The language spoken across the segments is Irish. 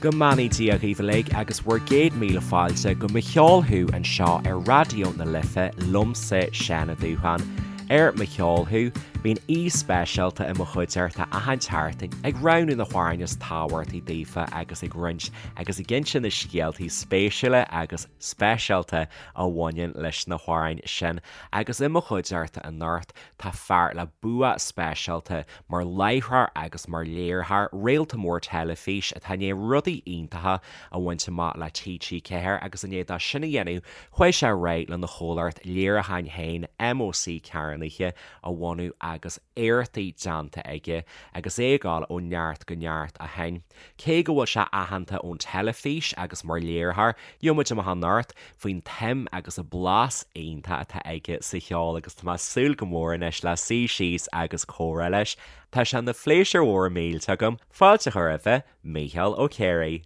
Go mbeannaí Dia dhaoibh uilig agus bhur gcéad míle fáilte go Mo Cheol Thú anseo ar Raidió na Life liomsa Seán Ó Dúsháin. Ar Mo Cheol Thú, bíonn aoi speisialta i mo chuideachta achan tseachtain ag roghnú na hamhráin is tábhachtaí daofa agus ag roinnt agus ag inse na scéaltaí spéisiúla agus speisialta a bhaineann leis na hamhráin sin. Agus i mo chuideachta anocht tá fear le bua speisialta mar láithreoir agus mar léiritheoir, réalta mór teilifís atá i ndiaidh rudaí iontacha a bhaint amach le TG4 agus i ndiaidh dó sin a dhéanamh, chuaigh sé ar aghaidh lena chomhlacht léiriúcháin féin, MÓC Cearnaithe, a bhunú agus éachtaí déanta aige agus é ag dul ó neart go neart ó shin. Cé go bhfuil sé aitheanta ón teilifís agus mar léiritheoir, gheobhaidh muid amach anocht faoin tsuim agus an blas iontach atá aige sa cheol agus tá mé ag súil go mór anois le suí síos agus comhrá leis. Tá sé ina phléisiúr mhór millteach agam fáilte a chur roimhe, Mícheál Ó Ciaraidh.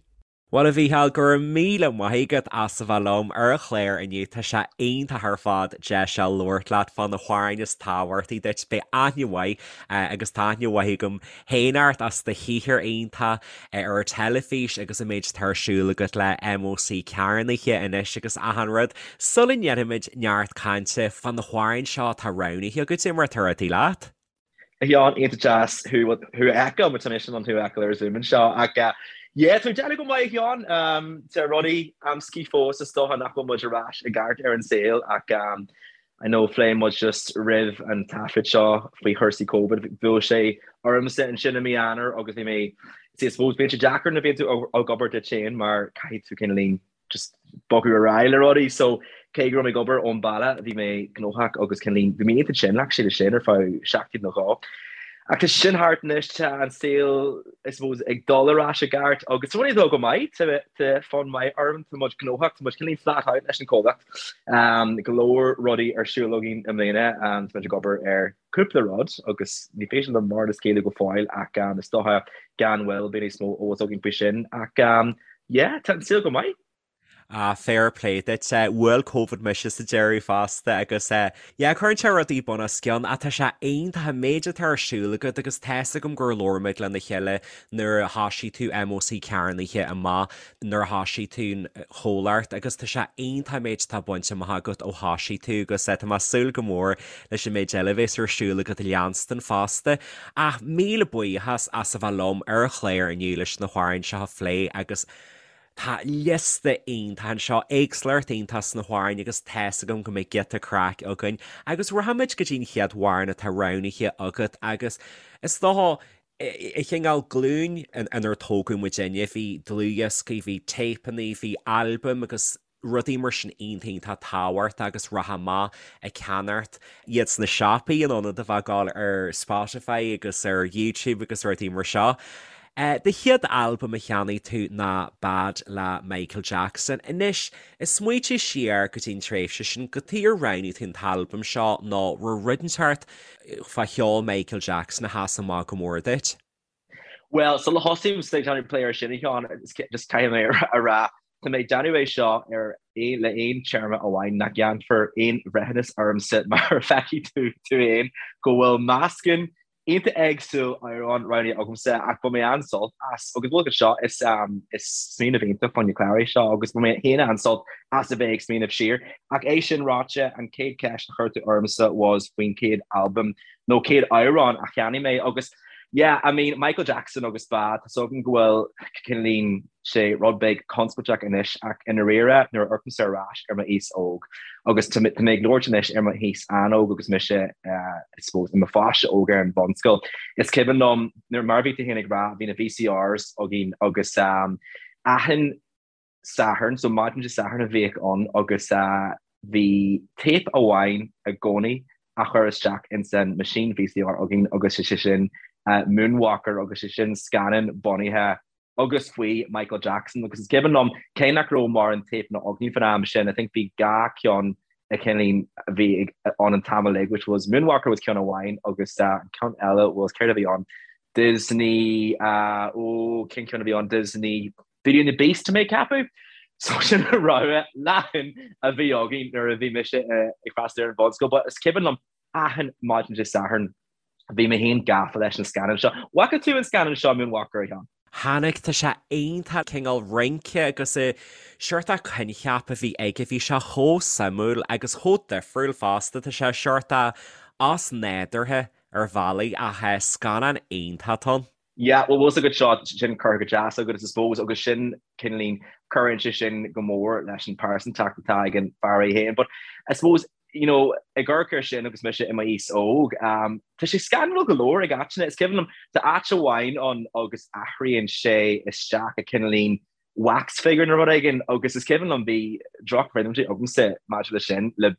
Bhuel a Mhícheáil, go raibh míle maith agat as a bheith liom ar an chlár inniu. Tá sé iontach ar fad deis a labhairt leat fá na hamhráin is tábhachtaí duit. Beidh aithne mhaith agus tá aithne mhaith agam féin ort as do shaothar iontach ar an teilifís agus an méid atá ar siúl agat le MÓC Cearnaithe anois agus achan rud. Sula ndéanfaimid neart cainte fá na hamhráin seo atá roghnaithe agat, cad é mar atá rudaí leat? A Sheáin, iontach deas thú a fheiceáil, mar tá mise in ann thú a fheiceáil ar Zoom anseo. Ach yeah, tá mé ag déanamh go maith a Sheáin. Tá rudaí amscaí fós is dócha nach bhfuil muid ar ais i gceart ar an saol ach I know phléigh muid just roimh an taifead seo faoi chúrsaí Covid, bhuail sé ormsa ansin i mí Eanáir agus bhí mé, see I suppose bíonn sé deacair nuair a bhíonn tú ag obair duit féin mar caithfidh tú cineáilín just bogadh ar aghaidh le rudaí so cé go raibh mé ag obair ón baile bhí mé gnóthach agus cineáilín bhí mé iontach tinn actually leis sin ar feadh seachtain nó dhó. Ach tá sin thart anois, tá an saol, I suppose, ag dul ar ais i gceart agus tá rudaí ag dul go maith, tá fonn maith orm, tá muid gnóthach, tá muid cineáilín flat out leis an chomhlacht. Go leor rudaí ar siúl againn i mbliana, tá muid ag obair ar cúpla rud agus ní féidir liom mórán a scaoileadh go fóill ach is dócha gan mhoill beidh níos mó eolas againn faoi sin ach yeah, tá an saol go maith. Ah, fair play duit. Bhuail Covid mise sa deireadh fosta agus yeah, cuireann sé rudaí bun os cionn ach tá sé iontach an méid atá ar siúl agat agus tá's agam gur labhair muid lena chéile nuair a thoisigh tú MÓC Cearnaithe amach, nuair a thoisigh tú an chomhlacht agus tá sé iontach an méid atá bainte amach agat ó thoisigh tú agus tá mé ag súil go mór leis an méid eile a bheas ar siúl agat a leanstan fosta. Ach míle buíochas as a bheith liom ar an chlár inniu leis na hamhráin seo a phlé agus Tá liosta iontach anseo, éagsúlacht iontach sna hamhráin agus tá's agam go mbeidh giota craic againn. Agus rachaimid go dtí an chéad amhrán atá roghnaithe agat agus is dócha, i chineál glúin inar tógadh muidinne, bhí dlúthdhioscaí, bhí téipeanna, bhí albaim agus rudaí mar sin iontach iontach tábhachtach agus rachfá amach ag ceannacht iad sna siopaí in ionad a bheith ag gabháil ar Spotify agus ar YouTube agus rudaí mar seo. Do chéad albam a cheannaigh tú ná Bad le Michael Jackson. Anois, ag smaoitiú siar go dtí an tréimhse sin, cad chuige ar roghnaigh tú an t-albam seo nó raibh rud inteacht fá cheol Michael Jackson a sheas amach go mór duit? Bhuel, sula thosaím ag déanamh plé ar sin, a Sheáin, just caithfidh mé a rá, tá mé ag déanamh é seo ar le aon téarma amháin, nach ndéanfar aon bhreithiúnas ormsa mar feicfidh tú tú féin go bhfuil meascán iontach éagsúil amhrán roghnaithe agamsa ach bhain mé an-sult as agus bhuel seo is is smaoineamh iontach fán chlár é seo agus bhain mé féin an-sult as a bheith ag smaoineamh siar. Ach é sin ráite, an chéad cheist a chuir tú ormsa was faoin chéad albam nó chéad amhrán a cheannaigh mé agus yeah, I mean Michael Jackson agus Bad, tá 's agam go bhfuil cineáilín sé rud beag conspóideach anois ach i ndáiríre nuair a amharcaimse ar ais ar m'aois óg agus tá mé ag labhairt anois ar m'aois an-óg agus mise I suppose i mo pháiste óg ar an bhunscoil is cuimhin liom nuair mar a bhí tú féin ag rá bhí na VCRs againn agus achan Satharn so maidin Dé Sathairn a bhíodh ann agus bhí téip amháin i gcónaí a chur isteach ins an machine VCR againn agus sé sin Moonwalker agus sé sin scannán bunaithe agus faoi Michael Jackson agus is cuimhin liom cé nach raibh mórán téipeanna againn fan am sin I think bhí dhá cheann a cineáilín a bhí ann an t-am uilig which was Moonwalker was ceann amháin agus an ceann eile was céard a bhí ann Disney ó cén ceann a bhí ann Disney Beauty and the Beast tá mé ag ceapadh. So sin an rogha leathan a bhí againn nuair a bhí mise ag freastal ar an bhunscoil but is cuimhin liom achan maidin Dé Sathairn Bhí mé féin gafa leis an scannán seo. Bhfaca tú an scannán seo, Moonwalker, a Sheáin? Tháinig, tá sé iontach, cineál rince agus an seort coincheap a bhí aige, bhí sé chomh suimiúil agus chomh difriúil fosta, tá sé seort osnádúrtha ar bhealaí ach scannán iontach atá ann. Yeah, bhuel bhfuil 's agat seo, sin curtha go deas agat I suppose agus sin cineáilín, cuireann sé sin go mór leis an pearsantacht atá ag an fear é féin but I suppose you know, ag amharc air sin agus mise i m'aois óg, tá sé scanrúil go leor ag áiteanna. Is cuimhin liom, tá áit amháin ann agus athraíonn sé isteach i cineáilín wax figure nó rud éigin agus is cuimhin liom bhí drochchuimhní agamsa maidir leis sin le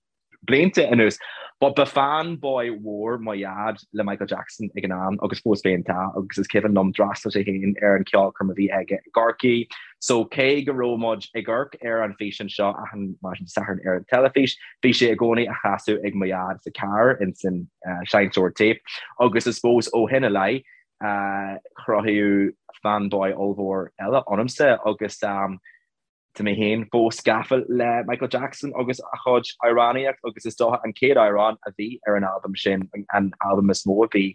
blianta anuas. But ba fanboy mhór mo dhaid le Michael Jackson ag an am agus fós féin tá agus is cuimhin liom d'fhreastail sé féin ar an cheolchoirm a bhí aige i gCorcaigh. So cé go raibh muid ag amharc ar an físeán seo achan maidin Sathairn ar an teilifís, bhí sé i gcónaí á chasadh ag mo dhaid sa carr ins an seinnteoir téip agus I suppose ó shin i leith cruthaíodh fanboy ollmhór eile ionamsa agus Tá mé féin fós gafa le Michael Jackson agus a chuid amhránaíocht agus is dócha an chéad amhrán a bhí ar an albam sin, an albam is mó a bhí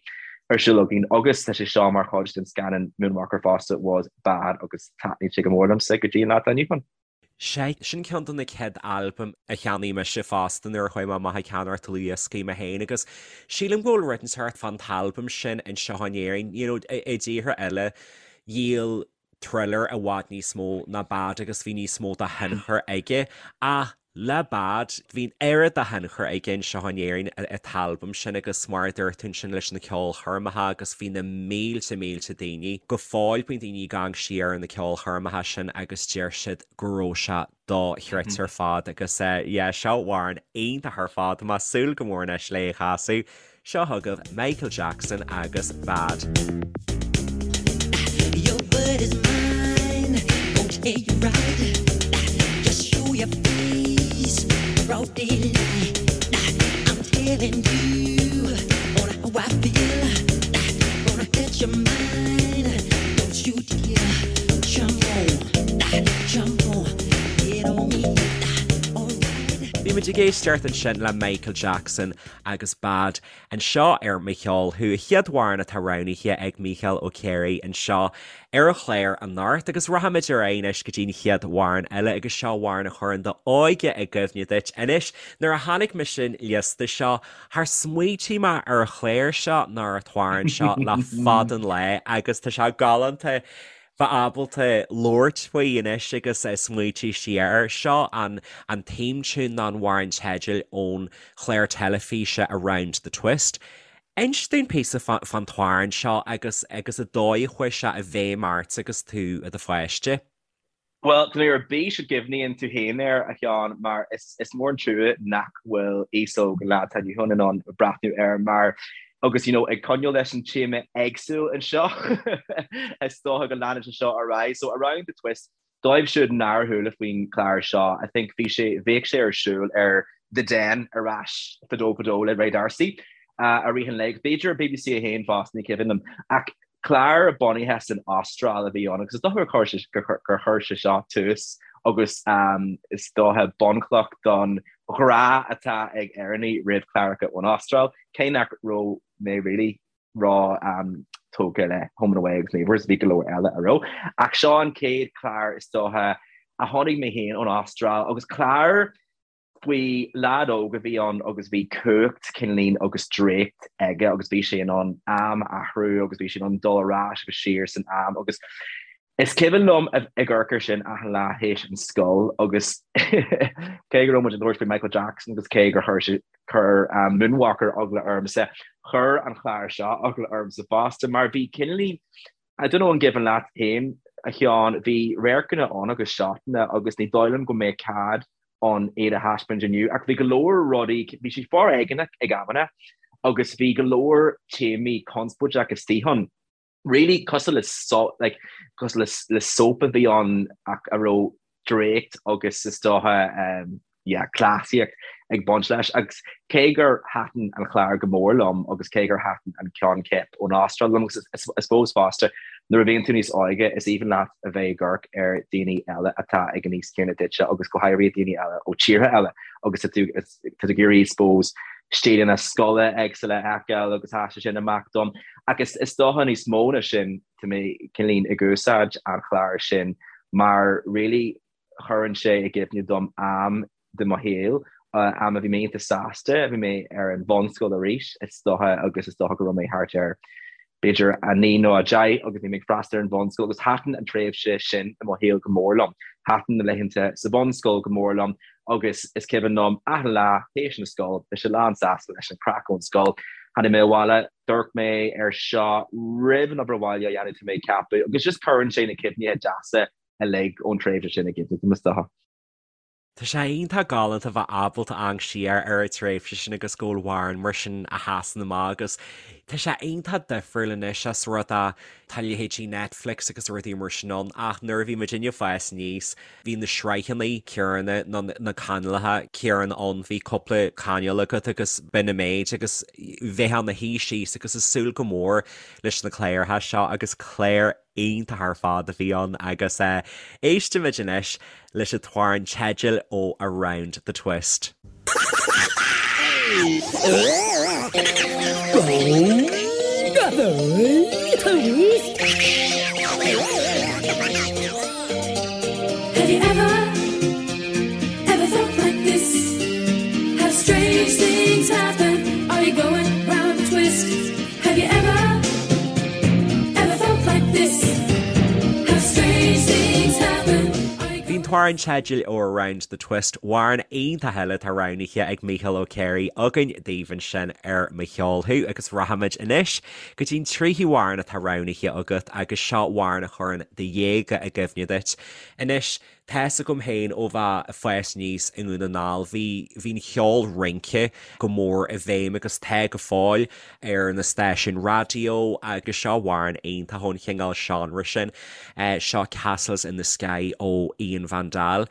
ar siúl againn agus tá sé seo mar chuid den scannán Moonwalker fosta, was Bad agus taitníonn sé go mór liomsa go dtí an lá atá inniu ann. Sea, sin ceann de na chéad albaim a cheannaigh mise fosta nuair a chuaigh mé amach ag ceannacht dlúthdhioscaí mé féin agus sílim go bhfuil rud inteacht fán t-albam sin anseo in Éirinn, you know, i dtíortha eile dhíol Thriller i bhfad níos mó ná Bad agus bhí níos mó de thionchar aige. Ach le Bad, bhí an oiread de thionchar aige anseo in Éirinn an t-albam sin agus mar a dúirt tú ansin leis na ceolchoirmeacha agus bhí na mílte mílte daoine, go fóill bíonn daoine ag amharc siar ar na ceolchoirmeacha sin agus deir siad go raibh sé dochreidte ar fad agus yeah seo amhrán iontach ar fad, tá mé ag súil go mór anois le é a chasadh. Seo chugaibh Michael Jackson agus Bad. Your word is mine, won't hear you right Just show your face, broad daylight I'm telling you on how I feel Gonna hurt your mind, don't you dare jump on Bhí muid ag éisteacht ansin le Michael Jackson agus Bad anseo ar Mo Cheol Thú, an chéad amhrán atá roghnaithe ag Mícheál Ó Ciaraidh anseo ar an chlár anocht agus rachaimid ar aghaidh anois go dtí an chéad amhrán eile agus seo amhrán a chuireann d'óige i gcuimhne duit. Anois, nuair a chonaic mise an liosta seo, char smaoitigh mé ar an chlár seo ná ar an t-amhrán seo le fada an lá agus tá sé galánta bheith ábalta labhairt faoi anois agus smaoitiú siar air. Seo an an theme tune nó an amhrán teidil ón chlár teilifíse Around the Twist. Inis dúinn píosa fán t-amhrán seo agus agus an dóigh a chuaigh sé i bhfeidhm ort agus tú i do pháiste. Bhuel, tá mé ar bís an gcuimhníonn tú féin air, a Sheáin, mar is mór an trua nach bhfuil aos óg an lá atá inniu ann in ann breathnú air mar, agus you know, ag coinneáil leis an téama éagsúil anseo, is dócha go leanann sé seo ar aghaidh. So, Around the Twist, dóibh siúd nár chuala faoin chlár seo, I think bhí sé, bhíodh sé ar siúl ar The Den ar ais fadó fadó le Ray D'Arcy i rith an lae, b'fhéidir ar BBC 1 fosta, ní cuimhin liom. Ach Clár bunaithe san Astráil a bhí ann agus is dócha gur chuir sé seo tús agus is dócha bunchloch don ghrá atá ag Éireannaigh roimh chláracha ón Astráil, cé nach raibh mé really ró tógtha le Home and Away agus Neighbours, bhí go leor eile a raibh. Ach seo an chéad chlár is dócha a chonaic mé féin ón Astráil agus clár faoi leaid óg a bhí ann agus bhí cumhacht cineáilín agus draíocht aige agus bhí sé in ann am a athrú agus bhí sé in ann dul ar ais agus siar san am agus is cuimhin liom ag amharc air sin achan lá théis an scoil agus cé go raibh muid ag labhairt faoi Michael Jackson agus cé gur chuir sé chuir um, Moonwalker eagla ormsa, chuir an chlár seo eagla ormsa fosta mar bhí cineáilín I don't know an gcuimhin leat féin, a Sheáin, bhí radharcanna ann agus seotanna agus ní dóigh liom go mbeadh cead ann iad a thaispeáint inniu ach bhí go leor rudaí, bhí sé foréigeanach ag amanna agus bhí go leor téamaí conspóideach istigh ann. Really cosúil le like cosúil le le soap a bhí ann ach a raibh draíocht agus is dócha yeah, cleasaíocht ag baint leis. Agus cé gur thaitin an chlár go mór liom agus cé gur thaitin an coincheap ón Astráil liom, agus I suppose fosta nuair a bhíonn tú níos óige is aoibhinn leat a bheith ag amharc ar daoine eile atá ag an aois céanna duitse agus go háirithe daoine eile ó tíortha eile agus tá tú tá tú ag iarraidh I suppose stíleanna scoile éagsúla a fheiceáil agus sheas sé sin amach dom. Agus is dócha níos mó ná sin. Tá mé cineáilín ag úsáid an chláir sin mar really chuireann sé i gcuimhne dom am de mo shaol, am a bhí mé iontach sásta, bhí mé ar an bhunscoil arís is dócha agus is dócha go raibh mé thart ar b'fhéidir 9 nó 10 agus bhí mé ag freastal ar an bhunscoil agus thaitin an tréimhse sin i mo shaol go mór liom. Thaitin na laethanta sa bhunscoil go mór liom agus is cuimhin liom achan lá théis na scoile, bhí sé lán sásta leis an craic ón scoil. Tháinig mé abhaile, d'amharc mé ar seo roimh an obair bhaile a dhéanamh tá mé ag ceapadh agus just cuireann sé na cuimhnithe deasa uilig ón tréimhse sin i gcuimhne dom is dócha. Tá sé iontach galánta bheith ábalta amharc siar ar an tréimhse sin agus go bhfuil amhrán mar sin a sheasann amach agus tá sé iontach difriúil anois as rud é tá leithéidí Netflix agus rudaí mar sin ann ach nuair a bhí muidinne ag fás aníos bhí na sraitheanna céanna nó na cainéalacha céanna ann, bhí cúpla cainéal agat agus b'in an méid agus bheifeá ina shuí síos agus ag súil go mór leis na cláracha seo agus cláir iontach ar fad a bhí ann agus éistimid anois leis an t-amhrán teidil ó Around the Twist. Have you ever, ever felt like this? Have strange things happen? Are you going round the twist? Have you ever, ever felt like this? Have strange things happen? Are you Bhí an t-amhrán teidil ó Around the Twist, amhrán iontach eile atá roghnaithe ag Mícheál Ó Céirigh againn daoibh ansin ar Mo Cheol Thú agus rachaimid anois go dtí'n tríú hamhrán atá roghnaithe agat agus seo amhrán a chuireann do dhéaga i gcuimhne duit. Anois, Tá's agam féin ó bheith ag fás aníos i nDún na nGall, bhí, bhí an cheol rince go mór i bhfeidhm agus tá go fóill ar na stáisiúin raidió agus seo amhrán iontach ón chineál seánra sin, seo Castles in the Sky ó Ian Van Dahl.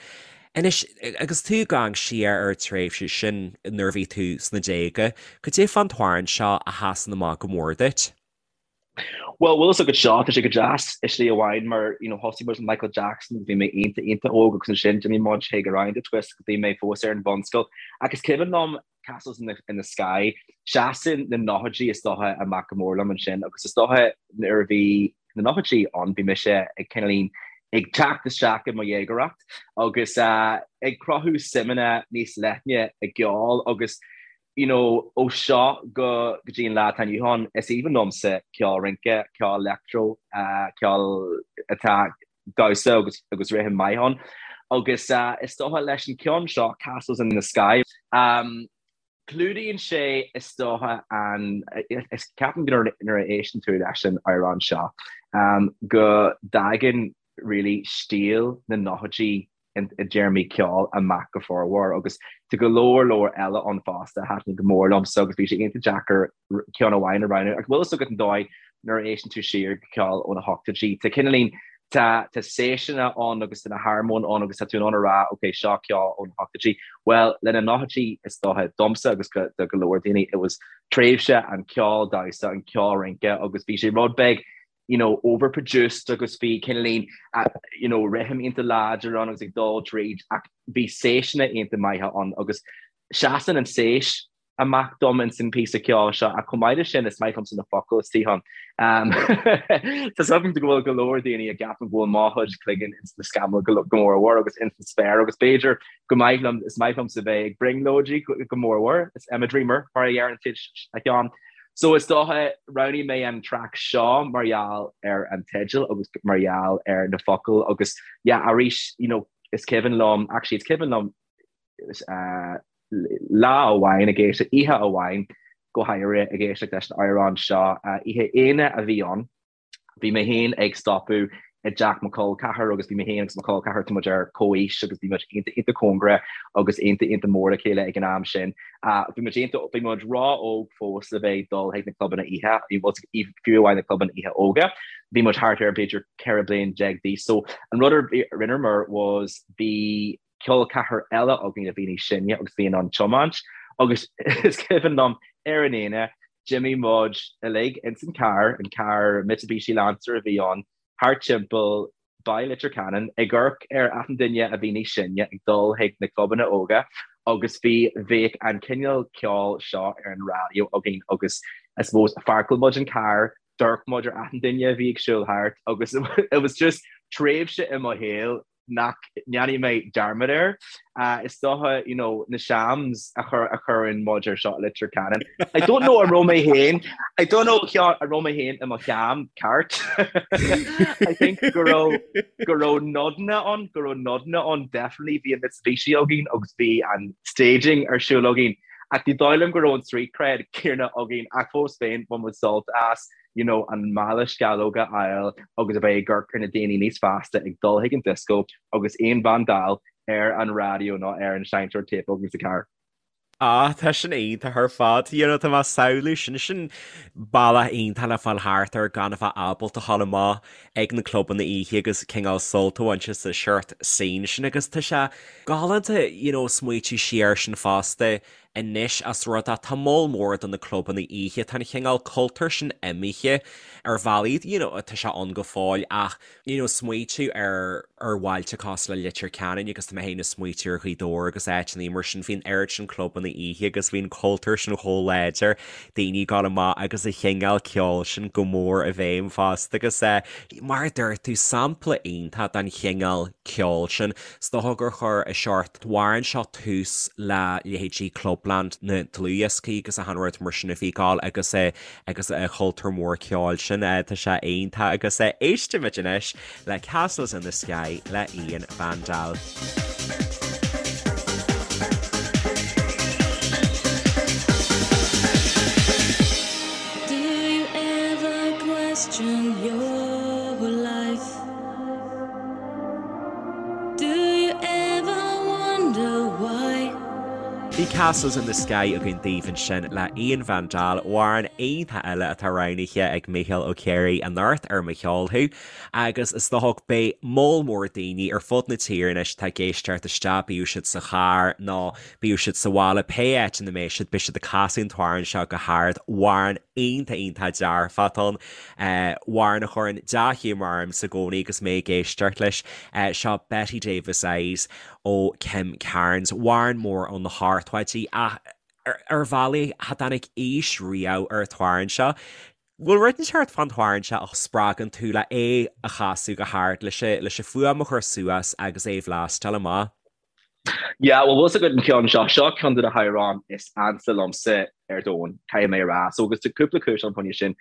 Anois, agus tú ag amharc siar ar an tréimhse sin nuair a bhí tú sna déaga, cad é fán t-amhrán seo a sheasann amach go mór duit? Bhuel, bhfuil fhios agat seo, tá sé go deas i slí amháin mar, you know, thosaigh muid le Michael Jackson agus bhí mé iontach, iontach óg agus ansin d'imigh muid chuig Around the Twist agus bhí mé fós ar an bhunscoil. Ach is cuimhin liom Castles in the, in the Sky, seasann na nóchaidí is dócha amach go mór liom ansin agus is dócha nuair a bhí na nóchaidí ann bhí mise ag cineáilín ag teacht isteach i mo dhéagóireacht agus uh, ag cruthú suimeanna níos leithne i gceol agus you know, ó seo go go dtí an lá atá inniu ann, is aoibhinn liomsa ceol rince, ceol leictreó, ceol atá damhsa agus agus rithim maith ann. Agus is dócha leis an ceann seo, Castles in the Sky, um, clúdaíonn sé is dócha an, is ceapaim go nuair a éisteann tú leis an amhrán seo, um, go dtagann really stíl na nóchaidí i dtéarmaí ceoil amach go formhór agus tá go leor leor eile ann fosta a thaitníonn go mór liomsa agus bhí sé iontach deacair ceann amháin a roghnú ach bhfuil fhios agat an dóigh nuair a éisteann tú siar go ceol ó na hochtóidí tá cineáilín tá tá séiseanna ann agus tá na harmóin ann agus tá tú in ann a rá ok seo ceol ó na hochtóidí. Bhuel le na nóchaidí is dócha domsa agus go do go leor daoine it was tréimhse an ceol damhsa an ceol rince agus bhí sé rud beag you know, overproduced agus bhí cineáilín, you know, rithim iontach láidir ann agus ag dul tríd ach bhí séiseanna iontach maithe ann agus seasann an tséis amach dom ins an píosa ceoil seo ach chomh maith leis sin is maith liomsa na focail istigh ann. Um, Tá agam go bhfuil go leor daoine a gceapann go bhfuil mo chuid cloigeann ins na scamaill go mór mhór agus ins an spéir agus b'fhéidir go maith liom is maith liomsa bheith ag brionglóidí go mór mhór is I'm a dreamer mar a dheireann siad a Sheáin. So is dócha, roghnaigh mé an traic seo mar gheall ar an teideal agus mar gheall ar na focail agus yeah arís you know is cuimhin liom, actually is cuimhin liom uh, lá amháin ag éisteacht, oíche amháin go háirithe ag éisteacht leis an amhrán seo, uh, oíche Aoine a bhí ann. Bhí mé féin ag stopadh i dteach mo chol ceathar agus bhí mé féin agus mo chol ceathar, tá muid ar comhaois agus bhí muid iontach iontach cóngarach agus iontach iontach mór le chéile ag an am sin. Bhí muid iontach, bhí muid ró-óg fós le bheith ag dul chuig na clubanna oíche, fiú amháin na clubanna oíche óga. Bhí muid thart ar b'fhéidir 14 bliain d'aois. So an rud a rinneamar was bhí col ceathar eile againn a bhí níos sine agus bhí in ann tiomáint agus is cuimhin liom ar an Aoine d'imigh muid uilig ins an carr, an carr Mitsubishi Lancer a bhí ann, thart timpeall Baile Leitir Ceanainn ag amharc ar achan duine a bhí níos sine ag dul chuig na clubanna óga agus bhí bhíodh an cineál ceoil seo ar an raidió againn agus I suppose pháirceáil muid an carr. D'amharc muid ar achan duine a bhí ag siúl thart agus it was just tréimhse i mo shaol nach ndéanfaidh mé dearmad air. Is dócha, you know, na shams a chur a chuireann muid ar seo i Leitir Ceanainn. I don't know an raibh mé féin, I don't know an raibh mé féin i mo sham ceart. I think go raibh go raibh nodanna ann, go raibh nodanna ann definitely bhí an Mitsubishi againn agus bhí an staging ar siúl againn. Ach ní dóigh liom go raibh an street cred céanna againn ach fós féin bhain muid sult as you know an mála sceallóg a fháil agus a bheith ag amharc ar na daoine níos fásta ag dul chuig an disco agus Ian Van Dahl ar an raidió nó ar an seinnteoir téip againn sa charr. Ah, tá sin iontach ar fad. You know, tá mé ag samhlú sin, sin bealach iontach le fáil thart air gan a bheith ábalta a ghabháil amach ag na clubanna oíche agus cineál sult a bhaint as an seort scene sin agus tá sé galánta you know smaoitiú siar air sin fosta anois as rud é tá moll mór de na clubanna oíche tá an chineál cultúr sin imithe ar bhealaí you know tá sé ann go fóill ach you know smaoitiú ar ar bhailte cosúil le Leitir Ceanainn agus tá mé féin ag smaoitiú ar Ghaoth Dobhair agus áiteanna mar sin bhí an oiread sin clubanna oíche agus bhí an cultúr sin chomh láidir daoine ag gabháil amach agus an chineál ceoil sin go mór i bhfeidhm fosta agus eh mar a dúirt tú sampla iontach den chineál ceoil sin. Is dócha gur chuir an seort amhrán seo tús le leithéidí Clubland na dlúthdhioscaí agus achan rud mar sin a bhí ag gabháil agus eh agus an cultúr mór ceoil sin. Tá sé iontach agus éistimid anois le Castles in the Sky le Ian Van Dahl. Do you ever question your life? Do you ever wonder why? Bhí Castles in the Sky againn daoibh ansin le Ian Van Dahl, amhrán iontach eile atá roghnaithe ag Mícheál Ó Ciaraidh anocht ar Mo Cheol Thú agus is dócha beidh moll mór daoine ar fud na tíre anois atá ag éisteacht isteach, bíodh siad sa charr nó bíodh siad sa bhaile, pé áit ina mbeidh siad, beidh siad ag casadh an t-amhrán seo go hard, amhrán iontach iontach dearfach atá ann. Amhrán a chuireann dea-ghiúmar ormsa i gcónaí agus mé ag éisteacht leis. Seo Bette Davis Eyes ó Kim Carnes. Amhrán mór ó na hochtóidí ach ar bhealaí cha dtáinig aois riamh ar an t-amhrán seo. Bhfuil rud inteacht fán t-amhrán seo a spreagann tú le é a chasadh go hard, leis an fuaim a chur suas agus é a bhlastáil amach? Yeah, well bhfuil 's agat an ceann seo, seo ceann de na hamhráin is ansa liomsa ar domhan, caithfidh mé a rá. So agus tá cúpla cúis ann fá choinne sin.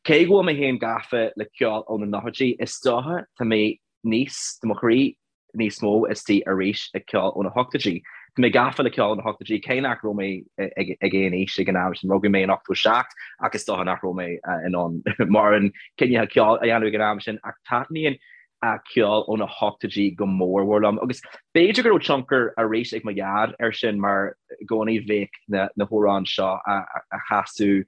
Cé go bhfuil mé féin gafa le ceol ó na nóchaidí, is dócha tá mé níos, tá mo chroí níos mó istigh arís ag ceol ó na hochtóidí. Tá mé gafa le ceol ó na hochtóidí, cé nach raibh mé ag aon aois ag an am sin, rugadh mé in 87 ach is dócha nach raibh mé in ann mórán cineál ceoil a dhéanamh ag an am sin ach taitníonn ceol ó na hochtóidí go mór mhór liom agus b'fhéidir go raibh tionchar arís ag mo dhaid air sin mar i gcónaí bheadh na na hamhráin seo á chasadh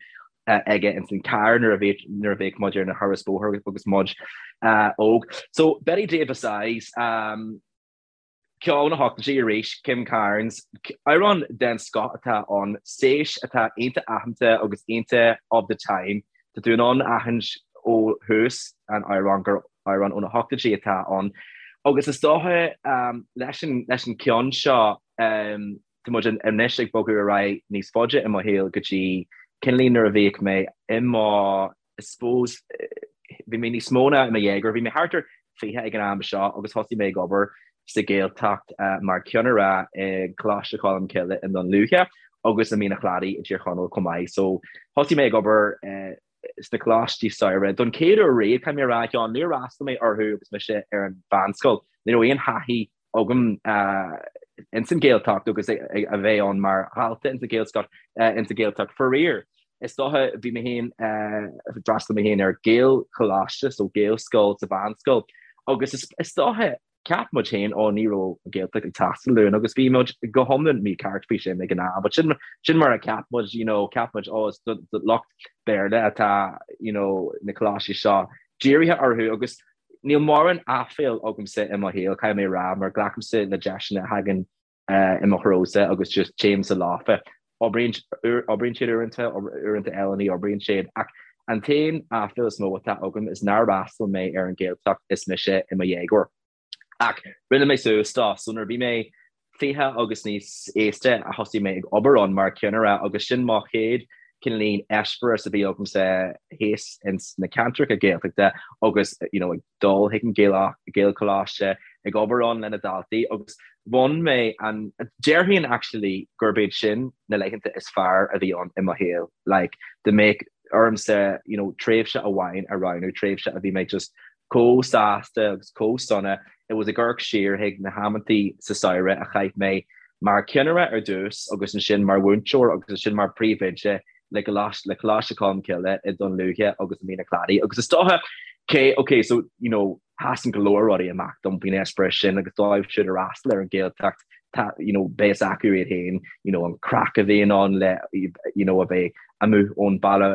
aige ins an carr nuair a bhíodh nuair a bheadh muid ar na thuras bóthair agus muid óg. So Bette Davis Eyes um, Ceol na hochtóidí arís, Kim Carnes, amhrán den scoth atá ann, séis atá iontach aitheanta agus iontach of the time. Tá tú in ann aithint ó thús an amhráin gur amhrán ó na hochtóidí atá ann. Agus is dócha leis an leis an ceann seo, tá muid anois ag bogadh ar aghaidh níos faide i mo shaol go dtí cineáilín nuair a bhíodh mé i mo I suppose, bhí mé níos mó ná i mo dhéagóir, bhí mé thart ar 20 ag an am seo agus thosaigh mé ag obair sa Ghaeltacht mar cheannaire i gColáiste Cholm Cille i nDún Lúiche agus i Mín an Chladaigh i dTír Chonaill chomh maith. So thosaigh mé ag obair sna coláistí samhraidh don chéad uair riamh, caithfidh mé a rá, a Sheáin, níor fhreastail mé orthu agus mise ar an mheánscoil. Ní raibh aon thaithí agam ins an Ghaeltacht agus a bheith ann mar dhalta ins an Ghaelscoil, ins an Ghaeltacht. Faraor, is dócha, bhí mé féin, d'fhreastail mé féin ar Ghaelcholáiste, so Gaelscoil sa mheánscoil, agus is dócha, cheap muid féin, ó ní raibh an Ghaeltacht ag teastáil uainn agus bhí muid go hiomlán mícheart faoi sin ag an am, but sin, sin mar a cheap muid, you know, cheap muid, ó is do lucht Béarla atá, you know, na coláistí seo dírithe orthu agus Níl mórán aiféal agamsa i mo shaol, caithfidh mé a rá, mar glacaimse le deiseanna a thagann i mo threosa agus just téimse leofa. Oibríonn oibríonn siad uaireanta, uaireanta eile ní oibríonn siad. Ach an t-aon aiféal is mó atá agam is nár fhreastail mé ar an Ghaeltacht is mise i mo dhéagóir. Ach rinne mé suas dó, so nuair a bhí mé 20 agus níos aosta a thosaigh mé ag obair ann mar cheannaire agus sin mo chéad. cineáilín eispéireas a bhí agamsa thíos ins na ceantracha Gaeltachta agus you know ag dul chuig an Gaelcholáiste, ag obair ann le na daltaí agus bhain mé an, déarfainn actually gurb iad sin na laethanta is fearr a bhí ann i mo shaol, like dá mbeadh ormsa you know tréimhse amháin a roghnú, tréimhse a bhí mé just chomh sásta agus chomh sona, it was ag amharc siar chuig na hamantaí sa samhradh a chaith mé mar cheannaire ar dtús agus ansin mar mhúinteoir agus ansin mar phríomhoide le le Coláiste Cholmcille i Dún Lúiche agus i Mín an Chladaigh agus is dócha cé ok so you know sheasann go leor rudaí amach dom faoin eispéireas sin agus dóibh siúd a fhreastal ar an Ghaeltacht tá you know beidh fhios acu iad féin you know an craic a bhíonn ann le you know a bheith amuigh ón baile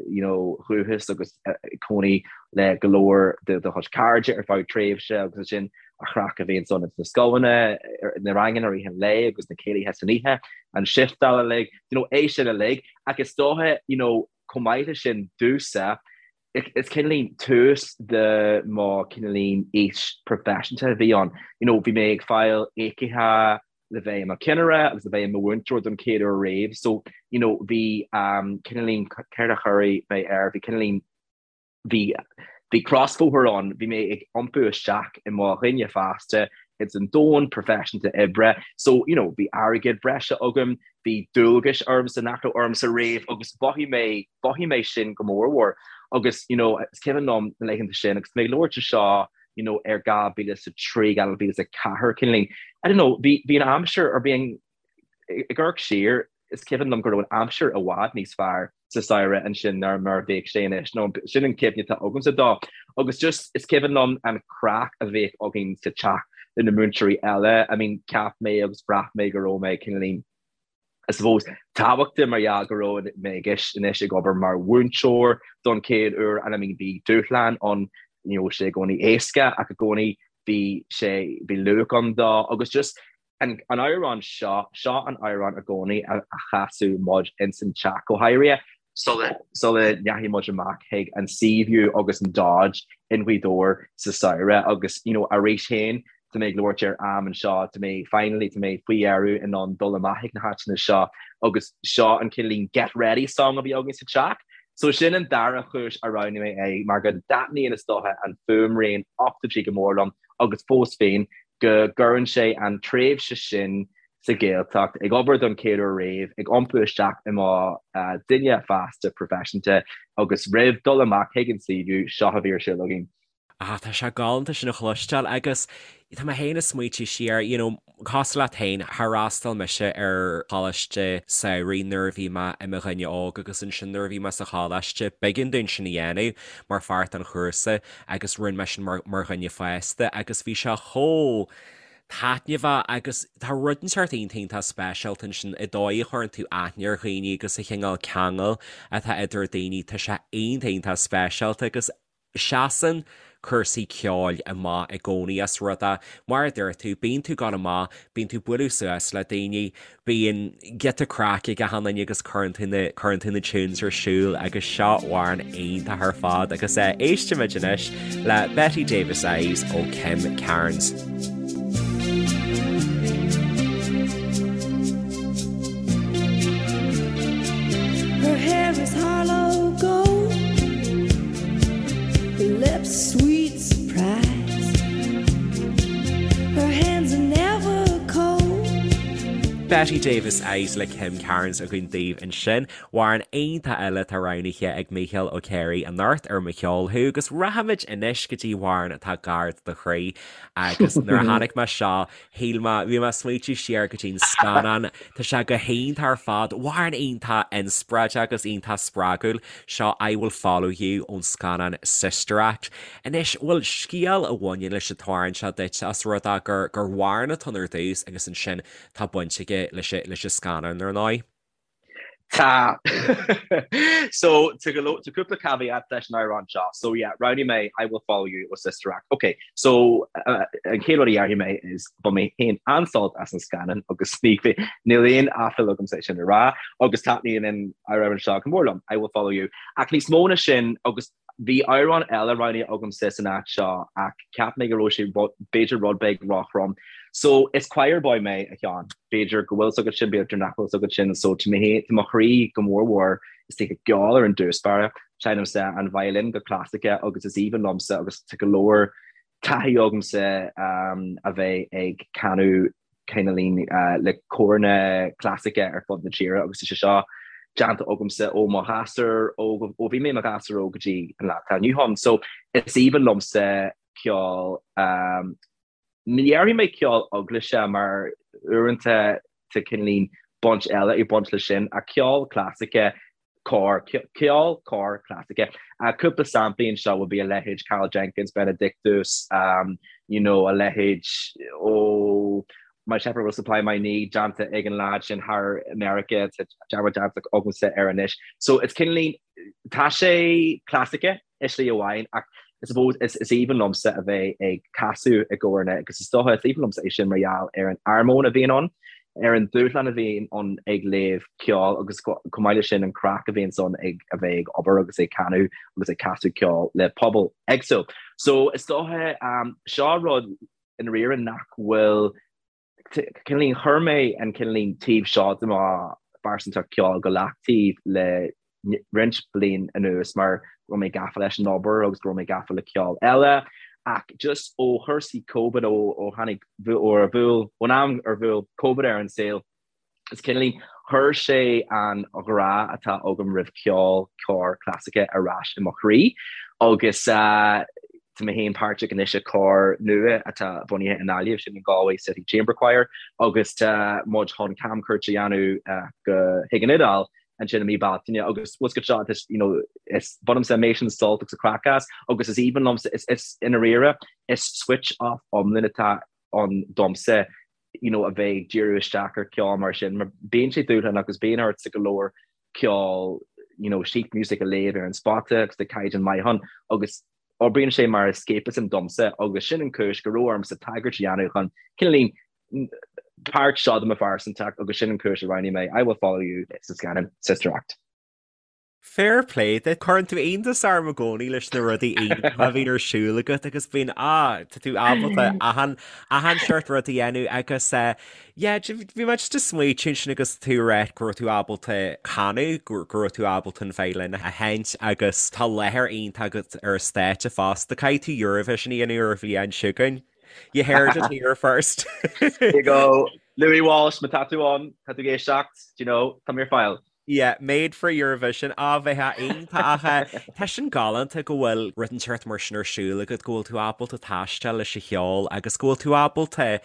you know dhúchas agus cónaí le go leor de do chuid cairde ar feadh tréimhse agus ansin an chraic a bhíonn ann ins na scoileanna, na ranganna i rith an lae agus na céilithe san oíche, an shiftáil uilig, you know, é sin uilig. Ach is dócha, you know, chomh maith leis sin, domhsa, is cineáilín tús de mo cineáilín aois proifisiúnta a bhí ann. You know, bhí mé ag fáil íocaithe le bheith i mo cheannaire agus le bheith i mo mhúinteoir don chéad uair riamh. So, you know, bhí um, cineáilín, céard a chuirfidh mé air, bhí cineáilín Bhí, bhí crosbhóthar ann, bhí mé ag iompú isteach i mo dhuine fásta ins an domhan proifisiúnta oibre, so, you know, bhí airgead breise agam, bhí dualgais ormsa nach raibh ormsa riamh agus mhothaigh mé, mhothaigh mé sin go mórmhór. Agus, you know, is cuimhin liom na laethanta sin agus mé ag labhairt anseo, you know, ar 2003, 2004, cineáilín, I don't know, bhí, bhí an aimsir, or bhí an, Ag amharc siar, is cuimhin liom go raibh an aimsir i bhfad níos fearr sa samhradh ansin ná mar a bhíodh sé anois, nó sin an cuimhne atá agamsa dó. Agus just, is cuimhin liom an craic a bhíodh againn sa teach le na múinteoirí eile. I mean, cheap mé agus bhraith mé go raibh mé cineáilín, I suppose, tábhachtach mar gheall go raibh mé anois ag obair mar mhúinteoir don chéad uair and I mean bhí dúshlán ann, ní raibh sé i gcónaí éasca ach i gcónaí bhí sé, bhí luach ann dó agus just An amhrán seo, seo an amhrán i gcónaí a chasadh muid ins an teach, go háirithe sula sula ndeachaigh muid amach chuig an Seaview agus an Dodge in Gaoth Dobhair sa samhradh agus you know arís féin tá mé ag labhairt ar am anseo, tá mé finally tá mé faoi dheireadh in ann dul amach chuig na háiteanna seo agus seo an cineáilín get ready song a bhí againn sa teach. So sin an dara chúis a roghnaigh mé é mar go dtaitníonn is dócha an fuaimrian ochtóidí go mór liom agus fós féin go gcuireann sé an tréimhse sin sa Ghaeltacht, ag obair don chéad uair riamh, ag iompú isteach i mo dhuine fásta proifisiúnta agus roimh dul amach chuig an Seaview, seo a bhí ar siúl againn. Ah, tá sé galánta sin a chloisteáil agus tá mé féin ag smaoitiú siar, you know, cosúil leat féin, d'fhreastail mise ar choláiste samhraidh nuair a bhí mé i mo dhuine óg agus ansin nuair a bhí mé sa choláiste, b'éigean dúinn sin a dhéanamh mar pháirt den chúrsa agus rinne mé sin mar mar dhuine fásta agus bhí sé chomh taitneamhach agus tá rud inteacht iontach iontach speisialta ansin i dóigh a chuireann tú aithne ar dhaoine agus an cineál ceangal atá idir daoine tá sé iontach iontach speisialta agus seasann cúrsaí ceoil amach i gcónaí as rud é mar a dúirt tú bíonn tú ag gabháil amach bíonn tú ag bualadh suas le daoine Bíonn giota craic ag achan duine agus cuireann tú na, cuireann tú na tunes ar siúl agus seo amhrán iontach ar fad agus eh, éistimid anois le Bette Davis Eyes ó Kim Carnes. Her hair is Harlow gold, her lips sweet surprise, her hands are never cold. Bette Davis Eyes le Kim Carnes againn daoibh ansin. Amhrán iontach eile atá roghnaithe ag Mícheál Ó Céirigh anocht ar Mo Cheol Thú agus rachaimid anois go dtí amhrán atá gar do chroí agus nuair a chonaic mé seo shíl mé, bhí mé ag smaoitiú siar go dtí'n scannán, tá sé go hiontach ar fad, amhrán iontach inspioráideach agus iontach spreagúil, seo I Will Follow You ón scannán Sister Act. Anois, bhfuil scéal a bhaineann leis an t-amhrán seo duit, os rud é gur gur amhrán atá ann ar dtús agus ansin tá baint aige leis leis an scannán ar ndóigh? Tá. So, tá go leor, tá cúpla caveat leis an amhrán seo. So yeah, roghnaigh mé I Will Follow You ó Sister Act. Ok, so an chéad rud a dhéarfaidh mé is bhain mé féin an-sult as an scannán agus ní, níl aon aiféala agamsa é sin a rá agus taitníonn an amhrán seo go mór liom, I Will Follow You. Ach níos mó ná sin agus Bhí amhrán eile roghnaithe agamsa san áit seo ach cheap mé go raibh sé b'fhéidir rud beag róthrom. So is choir boy mé, a Sheáin. B'fhéidir go bhfuil 's agat sin, b'fhéidir nach bhfuil 's agat sin. So tá mé, tá mo chroí go mór mhór. istigh i gceol ar an dtús báire. Seinnimse an violin go clasaice agus is aoibhinn liomsa agus tá go leor taithí agamsa a bheith ag canadh cineáilín le córanna clasaice ar fud na tíre agus tá sé seo déanta agamsa ó mo ghasúr óg, ó bhí mé i mo ghasúr óg go dtí an lá atá inniu ann. So is aoibhinn liomsa ceol, ní dhéarfaidh mé ceol eaglaise mar uaireanta tá cineáilín baint eile ag baint leis sin ach ceol clasaice cór, ceol cóir clasaice. Cúpla samplaí anseo would be a leithéid Karl Jenkins, Benedictus, you know, a leithéid ó My Shepherd Will Supply My Need déanta ag an lad sin thar America, tá dearmad déanta agamsa air anois. So it's cineáilín, tá sé clasaice, i slí amháin ach I suppose is aoibhinn liomsa a bheith ag casadh i gcóranna agus is dócha is aoibhinn liomsa é sin mar gheall ar an armóin a bhíonn ann, ar an dúshlán a bhíonn ann ag léamh ceoil agus chomh maith leis sin an craic a bhíonn ann ag a bheith ag obair agus ag canadh agus ag casadh ceoil le pobal éagsúil. So is dócha seo rud i ndáiríre nach bhfuil cineáilín, chuir mé an cineáilín taobh seo de mo phearsantacht ceoil go leataobh le roinnt bliain anuas mar go raibh mé gafa leis an obair agus go raibh mé gafa le ceol eile ach just ó chúrsaí Covid, ó tháinig, ó ar bhuail, ón am ar bhuail Covid ar an saol, Is cineáilín, chuir sé an ghrá atá agam roimh ceol cóir clasaice ar ais i mo chroí agus tá mé féin páirteach anois i cór nua atá bunaithe i nGaillimh, sin an Galway City Chamber Choir agus tá muid chun camchuairt a dhéanamh go chuig an Iodáil ansin i mí Bealtaine agus what's good seo is you know is bainimse amazing sult agus craic as agus is aoibhinn liomsa is is i ndáiríre is switch off iomlán atá ann domsa you know, a bheith ag díriú isteach ar ceol mar sin, mar bíonn sé dúshlánach agus bíonn ortsa go leor ceol, you know, sheet music a léamh ar an spota agus tá caighdeán maith ann agus oibríonn sé mar escapism domsa agus sin an cúis go raibh ormsa tagairt a dhéanamh chun cineáilín páirt seo de mo phearsantacht agus sin an cúis a roghnaigh mé I Will Follow You sa scannán Sister Act. Fair play duit. Cuireann tú iontas orm i gcónaí leis na rudaí iontacha a bhíonn ar siúl agat agus bíonn, ah, tá tú ábalta achan, achan seort rud a dhéanamh agus eh, yeah, bhí mé just ag smaoitiú ansin agus tú ag rá go raibh tú ábalta canadh, go go raibh tú ábalta an veidhlin a sheinnt agus tá láthair iontach agat ar an stáitse fosta. Caithfidh tú Eurovision a dhéanamh ar an bhliain seo chugainn. You heard it here first. There you go. Louis Walsh, má tá tú ann, tá tú ag éisteacht, do you know, tá mé ar fáil. Yeah, made for Eurovision, á bheith iontach ach tá sin galánta go bhfuil rud inteacht mar sin ar siúl agat, go bhfuil tú ábalta taisteal leis an cheol agus go bhfuil tú ábalta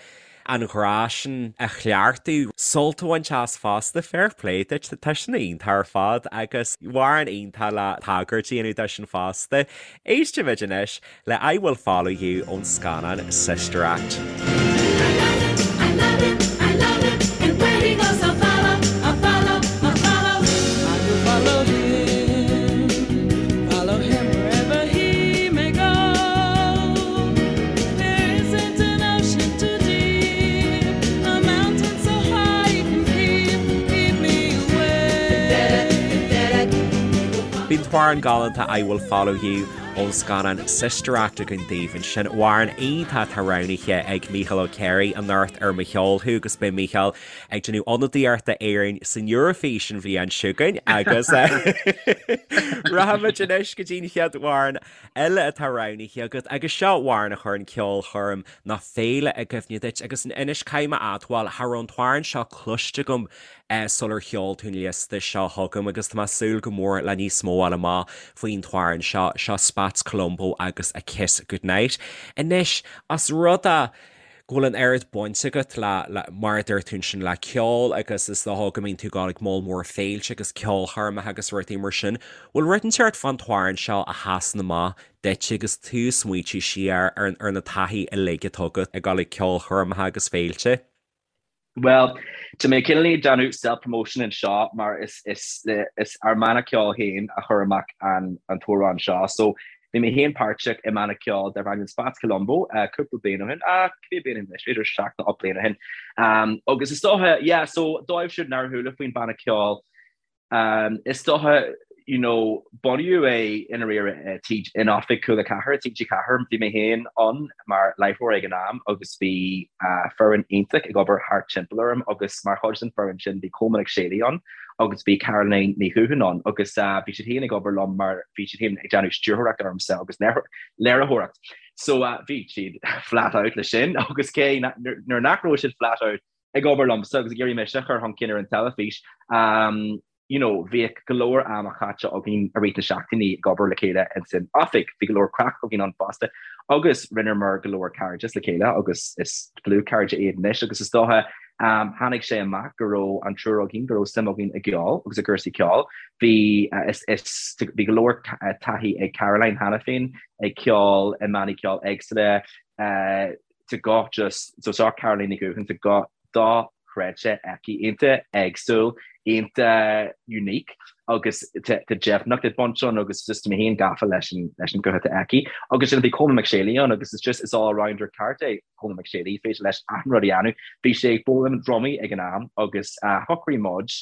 an grá sin a chleachtadh, sult a bhaint as fosta, fair play duit, tá sin iontach ar fad agus amhrán iontach le tagairt a dhéanamh dó sin fosta. Éistfimid anois le I Will Follow You ón scannán Sister Act. Bhí an t-amhrán galánta I Will Follow You Ón scannán Sister Act againn daoibh ansin, amhrán iontach atá roghnaithe ag Mícheál Ó Cléirigh anocht ar Mo Cheol Thú agus beidh Mícheál ag déanamh ionadaíocht d'Éirinn san Eoraifís an bhliain seo chugainn agus rachaimid anois go dtí an chéad amhrán eile atá roghnaithe agat agus seo amhrán a chuireann ceolchoirm nó féile i gcuimhne duit agus anois caithfidh mé a admháil, cha raibh an t-amhrán seo cloiste agam sular sheol tú an liosta seo chugam agus tá mé ag súil go mór le níos mó a fháil amach faoin t-amhrán seo, seo Spats Colombo agus A Kiss Goodnight. Anois, os rud é go bhfuil an oiread baint agat le, le, mar a dúirt tú ansin, le ceol agus is dócha go mbíonn tú ag dul ag moll mór féilte agus ceolchoirmeacha agus rudaí mar sin, bhfuil rud inteacht fán t-amhrán seo a sheasann amach duit agus tú ag smaoitiú siar ar, ar na taithí uilig atá agat ag dul ag ceolchoirmeacha agus féilte? Bhuel, tá mé cineál ag déanamh self-promotion anseo mar is is is ár mbanna ceoil féin a chuir amach an an t-amhrán seo. So bhí mé féin páirteach i mbanna ceoil darb ainm Spats Colombo cúpla bliain ó shin, ah cibé bliain ó shin anois, b'fhéidir seacht nó ocht bliain ó shin. Agus is dócha, yeah, so dóibh siúd nár chuala faoin banna ceoil, is dócha. you know, bunaíodh é i ndáiríre in oifig Cúla 4, TG4, bhí mé féin ann mar láithreoir ag an am agus bhí foireann iontach ag obair thart timpeall orm agus mar chuid den foireann sin bhí Colmán Mac Séalaigh ann agus bhí Caroline Ní Dhubháin ann agus bhí siad féin ag obair liom mar bhí siad féin ag déanamh stiúrthóireacht ormsa agus léiritheoireacht. So bhí siad flat out le sin agus cé nuair nach raibh siad flat out ag obair liomsa agus ag iarraidh mise a chur chun cinn ar an teilifís, you know, bhíodh go leor ama caite againn i rith na seachtainí ag obair le chéile ins an oifig. Bhí go leor craic againn ann fosta agus rinneamar go leor cairdeas le chéile agus is dlúthchairde iad anois agus is dócha um, tháinig sé amach go raibh an triúr againn, go raibh suim againn i gceol agus i gcúrsaí ceoil. Bhí, uh, is, is, bhí go leor uh, taithí ag Caroline cheana féin ag ceol i mbannaí ceoil éagsúla, uh, tá guth just so seo Caroline Ní Dhubháin tá guth dochreidte aici, iontach éagsúil, iontach unique agus tá deimhneacht ag baint ann agus just tá mé féin gafa leis an leis an guth atá aici. Agus sin bhí Colmán Mac Séalaigh ann agus it's just is all rounder ceart é Colmán Mac Séalaigh, féidir leis achan rud a dhéanamh. Bhí sé ag foghlaim drumaí ag an am agus shocraigh muid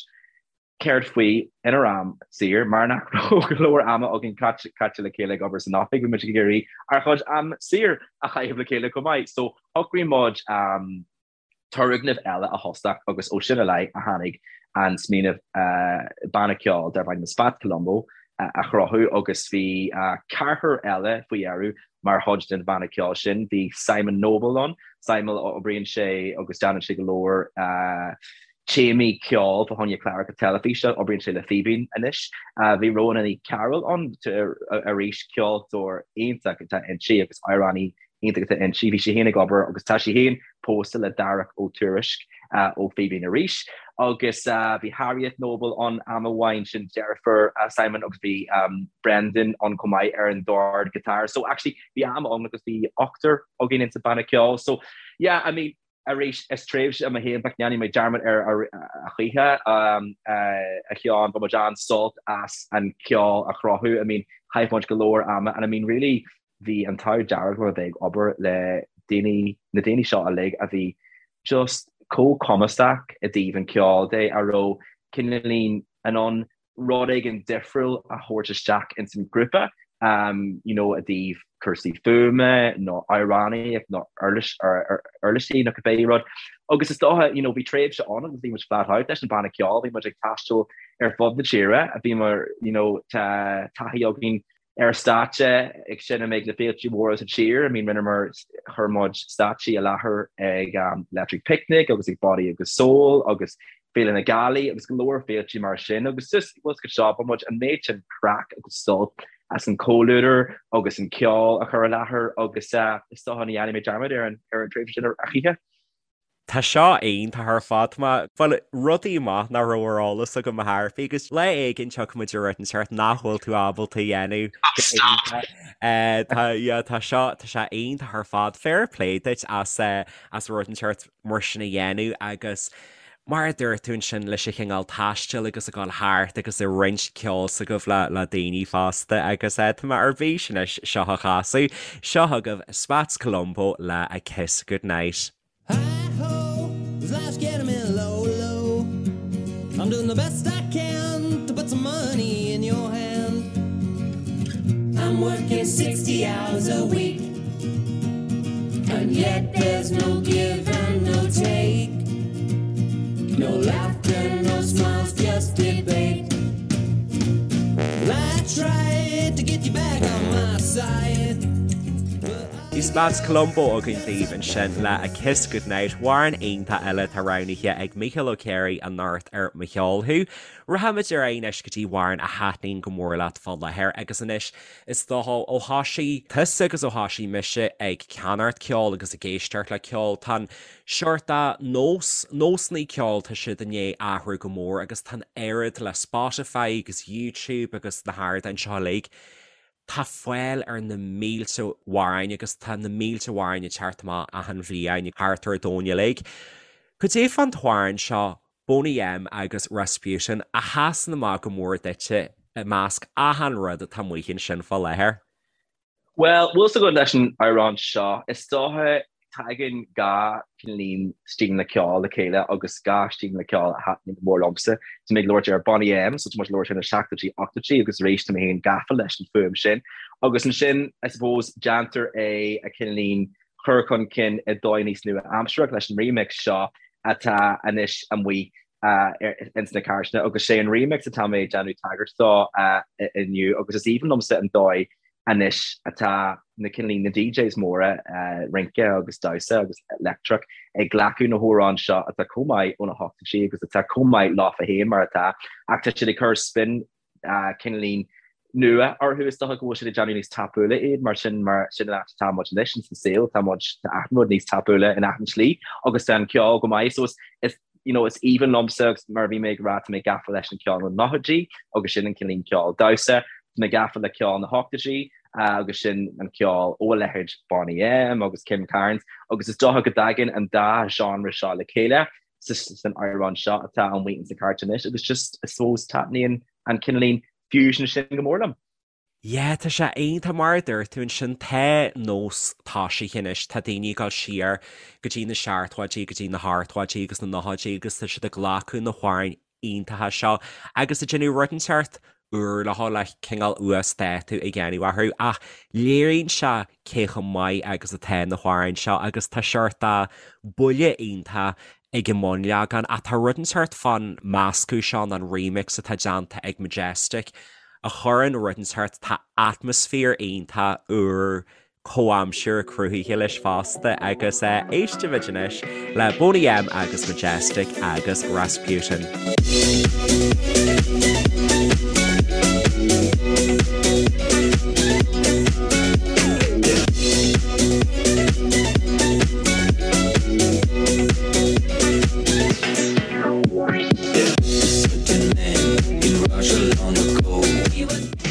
Céard faoi inár am saor, mar nach raibh go leor ama againn caite le chéile ag obair san oifig, bhí muid ag iarraidh ár chuid am saor a chaitheamh le chéile chomh maith. So shocraigh muid turgnamh eile a thosach agus ó sin i leith a tháinig an smaoineamh banna ceoil darb ainm Spats Colombo a chruthú agus bhí ceathrar eile faoi dheireadh mar chuid den bhanna ceoil sin. Bhí Simon Noble ann, Simon oibríonn sé agus déanann sé go leor téamaí ceoil fá choinne cláracha teilifíse, oibríonn sé le Fíbín anois. Bhí Rhona Ní Chearúil ann arís, ceoltóir iontach atá inti agus amhránaí iontach atá inti. Bhí sí féin ag obair agus tá sí féin pósta le Darach Ó Tuairisg ó Fíbín arís. Agus bhí Harriet Noble ann am amháin, sin deirfiúr Simon agus bhí Brendan ann chomh maith ar an dord guitar. So actually bhí am ann agus bhí ochtar againn insa banna ceoil. So yeah, I mean, Arís, is tréimhse i mo shaol nach ndéanfaidh mé dearmad air a choíche, a Sheáin. Bhain muid an-sult as an cheol a chruthú. I mean, chaith muid go leor ama and I mean really bhí an t-ádh dearg liom a bheith ag obair le daoine, na daoine seo uilig a bhí just chomh cumasach i dtaobh an cheoil de, a raibh cineáilín in ann rud éigin difriúil a thabhairt isteach ins an ghrúpa, you know, i dtaobh cúrsaí fuaime nó amhránaíocht nó uirlisí nó cibé rud. Agus is dócha, you know, bhí tréimhse ann agus bhí muid flat out leis an banna ceoil, bhí muid ag taisteal ar fud na tíre, bhí mar, you know, tá taithí againn ar stáitse ag seinm ag na féilte mhóra sa tír. I mean rinneamar, chuir muid stáitsí i láthair ag Electric Picnic agus ag Body agus Soul agus Féile na Gealaí agus go leor féilte mar sin agus just bhfuil go seo bhain muid an méid sin craic agus sult as an comhluadar agus an ceol a chur i láthair agus is dócha ní dhéanfaidh mé dearmad ar an ar an tréimhse sin a choíche. Tá seo iontach ar fad. Tá bhuel, rudaí maith nach raibh ar eolas agam a Thairfí agus lá éigin tiocfaidh muid ar rud inteacht nach bhfuil tú ábalta a dhéanamh go hiontach. Tá, yeah, tá seo, tá sé iontach ar fad. Fair play duit as, as rud inteacht mar sin a dhéanamh agus mar a dúirt tú ansin leis an chineál taistil agus ag dul thart agus ag roinnt ceol s'agaibh le, le daoine fosta agus tá mé ar bís anois seo a chasadh. Seo chugaibh Spats Colombo le A Kiss Goodnight. Hi-ho, this life's getting me low, low. I'm doing the best I can to put some money in your hand. I'm working 60 hours a week, and yet there's no give and no take. No laughter, no smiles, just debate. Well, I tried to get you back on my side. Bhí Spats Colombo againn daoibh ansin le A Kiss Goodnight, amhrán iontach eile atá roghnaithe ag Mícheál Ó Ciaraidh anocht ar Mo Cheol Thú. Rachaimid ar aghaidh anois go dtí amhrán a thaitníonn go mór leat fá láthair agus anois is dócha ó thosaigh tusa agus ó thosaigh mise ag ceannacht ceoil agus ag éisteacht le ceol tá an seort nós, nósanna ceoil tá siad i ndiaidh athrú go mór agus tá an oiread le Spotify agus YouTube agus na hardáin seo uilig Tá fáil ar na mílte amhráin agus tá na mílte amhráin ag teacht amach achan bhliain thart ar domhan uilig. Cad é fán t-amhrán seo, Boney M agus Rasputin, a sheasann amach go mór duitse i measc achan rud atá amuigh ansin fá láthair? Bhuel, bhfuil 's agat leis an amhrán seo, is dócha. Tagann gach cineáilín stíleanna ceoil le chéile agus gach stíleanna ceoil a thaitníonn go mór liomsa. Tá mé ag labhairt ar Boney M, so tá muid ag labhairt ar na seachtóidí, ochtóidí agus arís tá mé féin gafa leis an fuaim sin. Agus ansin, I suppose, déantar é a cineáilín chur chun cinn i dóigh níos nua-aimsearach leis an remix seo atá anois amuigh ins na cairteanna agus sé an remix atá mé ag déanamh tagairt dó inniu agus is aoibhinn liomsa an dóigh anois atá na cineáilín na DJs móra rince agus damhsa agus leictreach ag glacadh na hamhráin seo atá chomh maith ó na hochtóidí agus atá chomh maith leofa féin mar atá ach tá siad ag cur spin cineáilín nua orthu is dócha go bhfuil siad ag déanamh níos tapúla iad mar sin mar sin an áit atá muid anois ins an saol tá muid tá achan rud níos tapúla in achan slí agus tá an ceol go maith so is is you know is aoibhinn liomsa agus mar a bhí mé ag rá tá mé gafa leis an ceol na nóchaidí agus sin an cineáilín ceol damhsa tá mé gafa le ceol na hochtóidí agus sin an ceol ó a leithéid Boney M agus Kim Carnes agus is dócha go dtagann an dá genre seo le chéile san amhrán seo atá amuigh ins na cairt anois agus just I suppose taitníonn an cineáilín fusion sin go mór liom. Yeah, tá sé iontach mar a dúirt tú ansin, tá nós tosaithe anois, tá daoine ag dul siar go dtí na seachtóidí, go dtí na hochtóidí agus na nóchaidí agus tá siad ag glacadh na hamhráin iontacha seo agus ag déanamh rud inteacht úr leo le cineál uasdátú a dhéanamh orthu ach léiríonn sé cé chomh maith agus atá na hamhráin seo agus tá seort de buille iontach ag an mbunleagan ach tá rud inteacht fán meascadh seo nó an remix atá déanta ag Majestic a chuireann rud inteacht, tá atmaisféar iontach úr comhaimseartha cruthaithe leis fosta agus éistfimid anois le Boney M agus Majestic agus Rasputin.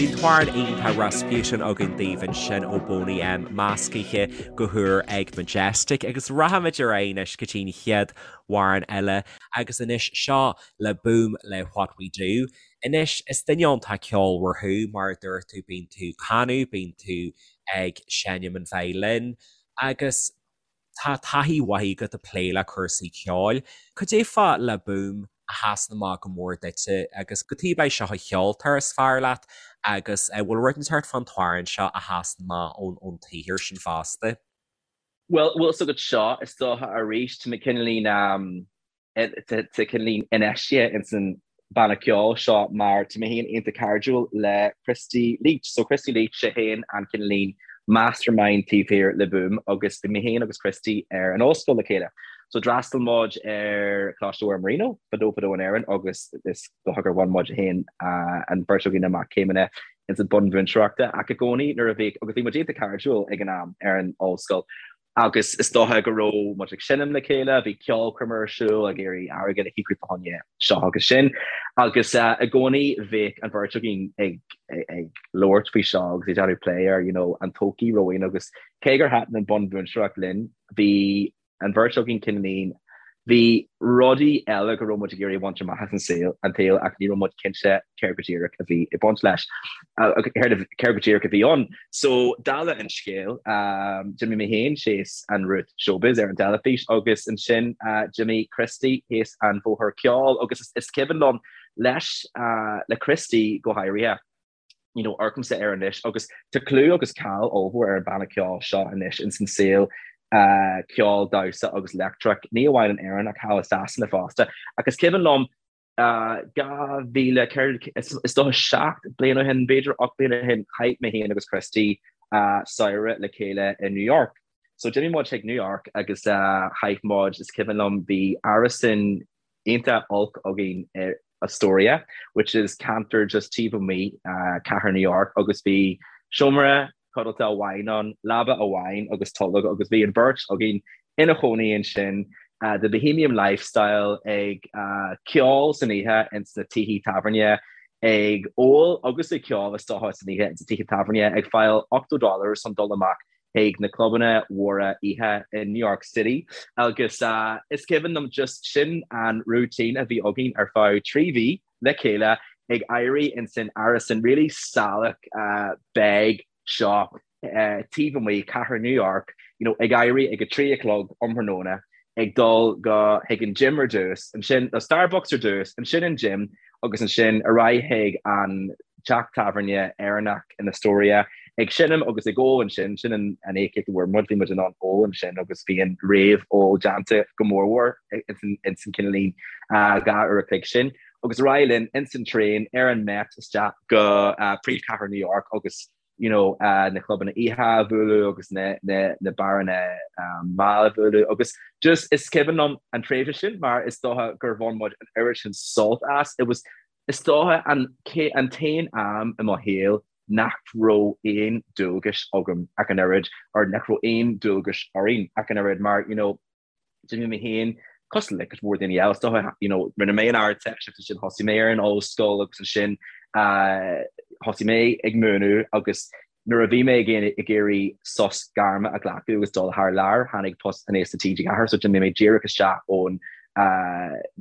Bhí an t-amhrán iontach Rasputin againn daoibh ansin ó Boney M, meascaithe go húr ag Majestic agus rachaimid ar aghaidh anois go dtí'n chéad amhrán eile agus anois seo le Boom le What We Do. Anois is duine iontach ceolmhar thú mar a dúirt tú bíonn tú ag canadh, bíonn tú ag seinm an violin agus Tá taithí mhaith agat ag plé le cúrsaí ceoil. Cad é fá Le Boom a sheasann amach go mór duitse agus cad chuige é seo an ceoltóir is fearr leat agus an bhfuil rud inteacht fán t-amhrán seo a sheasann amach ón tsaothar sin fosta? Bhuel, bhfuil 's agat seo, is dócha arís, tá mé cineáilín, tá cineáilín infheistithe ins an banna ceoil seo mar tá mé féin iontach cairdiúil le Christy Leach. So Christy Leach, sé féin an cineáilín mastermind taobh thiar Le Boom agus bhí mé féin agus Christy ar an ollscoil le chéile. So d'fhreastail muid ar Choláiste Mhuire Marino fadó fadó in Éirinn agus is dócha gur bhain muid féin an bheirt againn amach céimeanna ins an bunmhúinteoireachta ach i gcónaí nuair a bhí agus bhí muid iontach cairdiúil ag an am ar an ollscoil Agus is dócha go raibh muid ag seinm le chéile, bhí ceolchoirm ar siúl ag iarraidh airgead a shaothrú fá choinne seo agus sin. Agus i gcónaí bheadh an bheirt againn ag ag labhairt faoi seo agus ag déanamh plé ar you know an todhchaí romhainn agus cé gur thaitin an bunmhúinteoireacht linn, bhí an bheirt againn cineáilín Bhí rudaí eile go raibh muid ag iarraidh a bhaint amach as an saol, an tsaol ach ní raibh muid cinnte céard go díreach a bhí ag baint leis, céard go díreach a bhí ann. So, dála an scéil, d'imigh mé féin síos an route showbiz ar an teilifís agus ansin d'imigh Christy thíos an bhóthar ceoil agus is cuimhin liom leis, le Christy go háirithe, you know, amharcaimse air anois agus tá clú agus cáil ollmhór ar an banna ceoil seo anois ins an saol uh, ceol, damhsa agus leictreach, ní amháin in Éirinn ach thall i Sasana fosta. Ach is cuimhin liom uh, 2004 is dócha 7 bliain ó shin, b'fhéidir 8 bliain ó shin, chaith mé féin agus Christy uh, samhradh le chéile i New York. So d'imigh muid chuig New York agus uh, chaith muid, is cuimhin liom, bhí árasán iontach olc againn i Astoria, which is ceantar just taobh amuigh cathair New York agus bhí seomra codlata amháin ann, leaba amháin agus tolg agus bhí an bheirt againn ina chónaí ansin, the bohemian lifestyle, ag ceol san oíche ins na tithe tábhairne, ag ól agus ag ceol is dócha san oíche ins na tithe tábhairne, ag fáil $80 chun dul amach chuig na clubanna mhóra oíche i New York City agus is cuimhin liom just sin an routine a bhí againn ar feadh 3 mhí le chéile ag éirí ins an árasán really salach beag seo taobh amuigh cathair New York. you know, ag éirí ag a 3 a chlog um thráthnóna, ag dul go chuig an gym ar dtús, ansin nó Starbucks ar dtús, ansin an gym agus ansin ar aghaidh chuig an teach tábhairne Éireannach in Astoria, ag seinm agus ag ól ansin, sin an íocaíocht a bhfuair muid, bhí muid in ann ól ansin agus bhí an réamh-ól déanta go mórmhór ins an cineáilín 2 uair a chloig sin. Agus ar aghaidh linn ins an traein ar an Met isteach go príomhchathair New York agus you know, na clubanna oíche a bhualadh agus na, na, na beáranna mall a bhualadh agus just is cuimhin liom an tréimhse sin mar is dócha gur bhain muid an oiread sin sult as. It was is dócha an, an t-aon am i mo shaol nach raibh aon dualgais agam ach an oiread or nach raibh aon dualgais orainn ach an oiread mar, you know, D'imigh mé féin, cosúil le cuid mhór daoine eile, is dócha, you know, rinne mé an Ardteist agus ansin thosaigh mé ar an ollscoil agus ansin thosaigh mé ag múineadh agus nuair a bhí mé ag ag iarraidh sos gairme a ghlacadh agus dul thar lear, tháinig post aníos le TG4 so d'imigh mé díreach isteach ón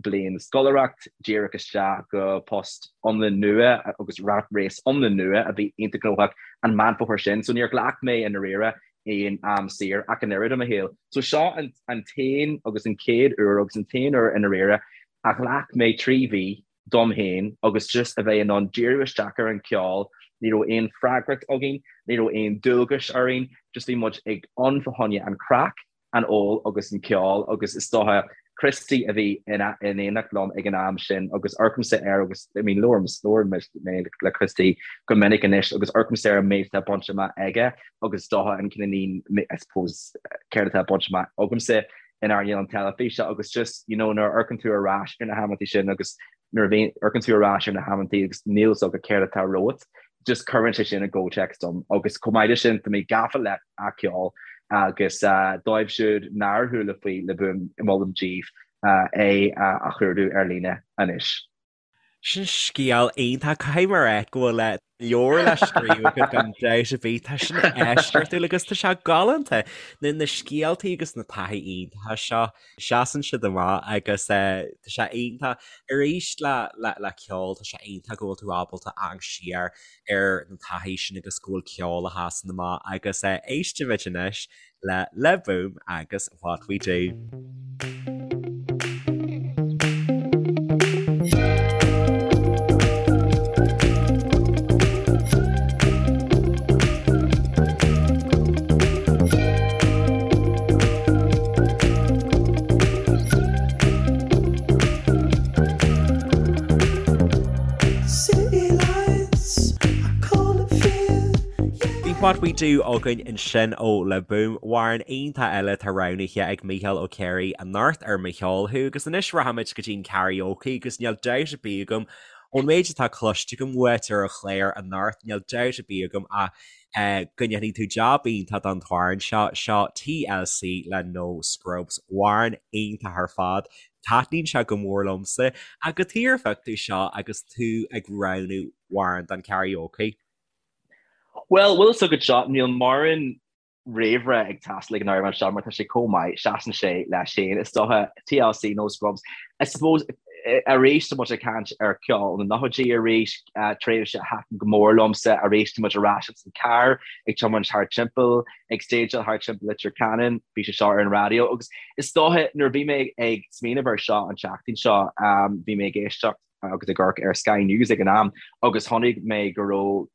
bliain scoláireacht, díreach isteach go post iomlán nua agus rat race iomlán nua a bhí iontach gnóthach an Meán Fómhair sin. So níor ghlac mé i ndáiríre aon am saor ach an oiread i mo shaol. So seo an an t-aon agus an chéad uair agus an t-aon uair i ndáiríre a ghlac mé 3 mhí dom féin agus just a bheith in ann díriú isteach ar an cheol, ní raibh aon freagracht againn, ní raibh aon dualgais orainn, just bhí muid ag ann fá choinne an craic an ól agus an ceol agus is dócha Christy a bhí in éineacht liom ag an am sin agus amharcaimse air agus I mean labhraím labhraím mé le Christy go minic anois agus amharcaimse ar an méid atá bainte amach aige agus is dócha an cineáilín I suppose céard atá bainte amach agamsa in earnáil an teilifíse agus just you know nuair a amharcann tú ar ais ar na hamantaí sin agus nuair a bhíonn amharcann tú ar ais ar na hamantaí agus níl fhios agat céard atá romhat, just cuireann sé sin i gcomhthéacs dom. Agus chomh maith leis sin, tá mé gafa le a ceol agus dóibh siúd nár chuala faoi Le Boom, molaim daoibh é a chuardú ar líne anois. Sin scéal iontach. Caithfidh mé a rá go bhfuil leabhar le scríobh agat gan dabht ar bith. Tá sin eisceachtúil agus tá sé galánta. Na na scéaltaí agus na taithí iontacha seo, seasann siad amach agus tá sé iontach. Arís le le le ceol, tá sé iontach go bhfuil tú ábalta amharc siar ar na taithí sin agus go bhfuil ceol a sheasann amach agus éistfimid anois le Le Boom agus What We Do. Bhí What We Do againn ansin ó Le Boom, amhrán iontach eile atá roghnaithe ag Mícheál Ó Ciaraidh anocht ar Mo Cheol Thú agus anois rachaimid go dtí an karaoke agus níl dabht ar bith agam ón méid atá cloiste agam uait ar an chlár anocht, níl dabht ar bith agam ach go ndéanfaidh tú jab iontach don t-amhrán seo, seo TLC le No Scrubs, amhrán iontach ar fad, taitníonn sé go mór liomsa. Ach cad chuige ar phioc tú seo agus tú ag roghnú amhrán don karaoke? Bhuel, bhfuil fhios agat seo, níl mórán réamhrá ag teastáil ag an amhrán seo mar tá sé chomh maith, seasann sé leis féin, is dócha, TLC, No Scrubs. I suppose, arís tá muid ag caint ar cheol na nóchaidí arís, tréimhse a thaitin go mór liomsa, arís tá muid ar ais ins an carr ag tiomáint thar timpeall, ag stage-áil thar timpeall Leitir Ceanainn, bhí sé seo ar an raidió agus is dócha nuair a bhí mé ag smaoineamh ar seo an tseachtain seo, bhí mé ag éisteacht agus ag amharc ar Sky News ag an am agus chonaic mé go raibh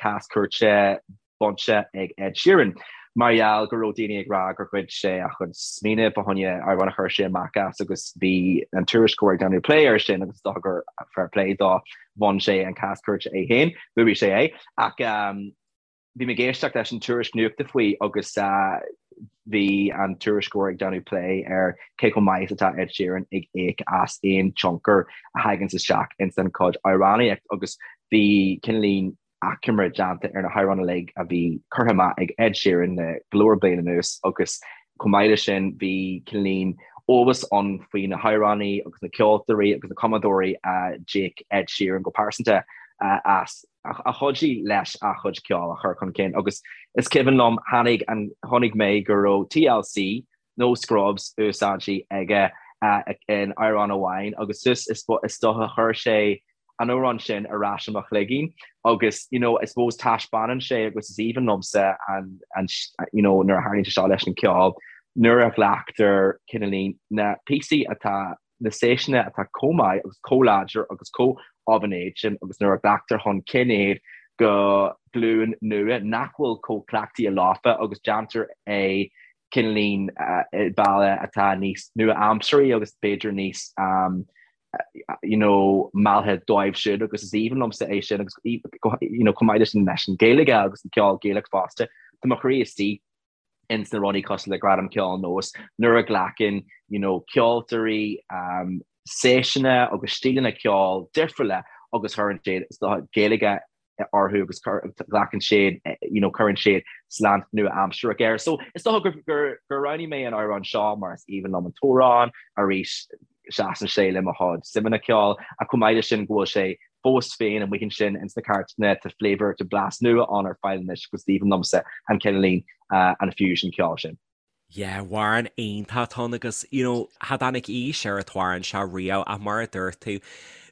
cás cúirte bainte ag Ed Sheeran mar gheall go raibh daoine ag rá gur ghoid sé a chuid smaoineamh fá choinne amhrán a chuir sé amach as agus bhí an tuairisceoir ag déanamh plé air sin agus is dócha gur fair play dó bhain sé an cás cúirte é féin, bhuaigh sé é ach bhí mé ag éisteacht leis an tuairisc nuachta faoi agus bhí an tuairisceoir ag déanamh plé ar cé chomh maith is atá Ed Sheeran ag íoc as aon tionchar a thaganns isteach ins an chuid amhránaíocht agus bhí cineáilín achoimre déanta ar na hamhráin uilig a bhí curtha amach ag Ed Sheeran le go leor bliain anuas agus chomh maith leis sin bhí cineáilín eolas ann faoi na hamhránaí agus na ceoltóirí agus na cumadóirí a d'íoc Ed Sheeran go pearsanta as a chuidigh leis a chuid ceoil a chur chun cinn agus is cuimhin liom tháinig an chonaic mé go raibh TLC No Scrubs úsáidte aige in amhrán amháin agus is is dócha chuir sé. an amhrán sin ar ais i mo chloigeann agus you know I suppose taispeánann sé agus is aoibhinn liomsa an an you know nuair a tharlaíonn sé seo leis an ceol nuair a ghlactar cineáilín na píosaí atá na séiseanna atá chomh maith agus chomh láidir agus chomh of an age sin agus nuair a ghlactar chun cinn iad go glúin nua nach bhfuil chomh cleachtaithe leofa agus déantar é cineáilín i bealach atá níos nua-aimseartha agus b'fhéidir níos you know mealltha dóibh siúd agus is aoibhinn liomsa é sin agus you know chomh maith leis leis an Ghaeilge agus an ceol Gaelach fosta tá mo chroí istigh ins na rudaí cosúil le Gradam Ceoil Nós nuair a ghlacann you know ceoltóirí um, séiseanna agus stíleanna ceoil difriúla agus cuireann siad is dócha Gaeilge orthu agus glacann siad you know cuireann siad slant nua-aimsearach air. So is dócha gur gur gur roghnaigh mé an amhrán seo mar is aoibhinn liom an t-amhrán arís seasann sé le mo chuid suimeanna ceoil ach chomh maith leis sin go bhfuil sé fós féin amuigh ansin ins na cairteanna tá flavour tá blas nua ann ar fáil anois agus is aoibhinn liomsa an cineáilín an fusion ceoil sin. Yeah, amhrán iontach atá ann agus you know cha dtáinig aois ar an t-amhrán seo riamh ach mar a dúirt tú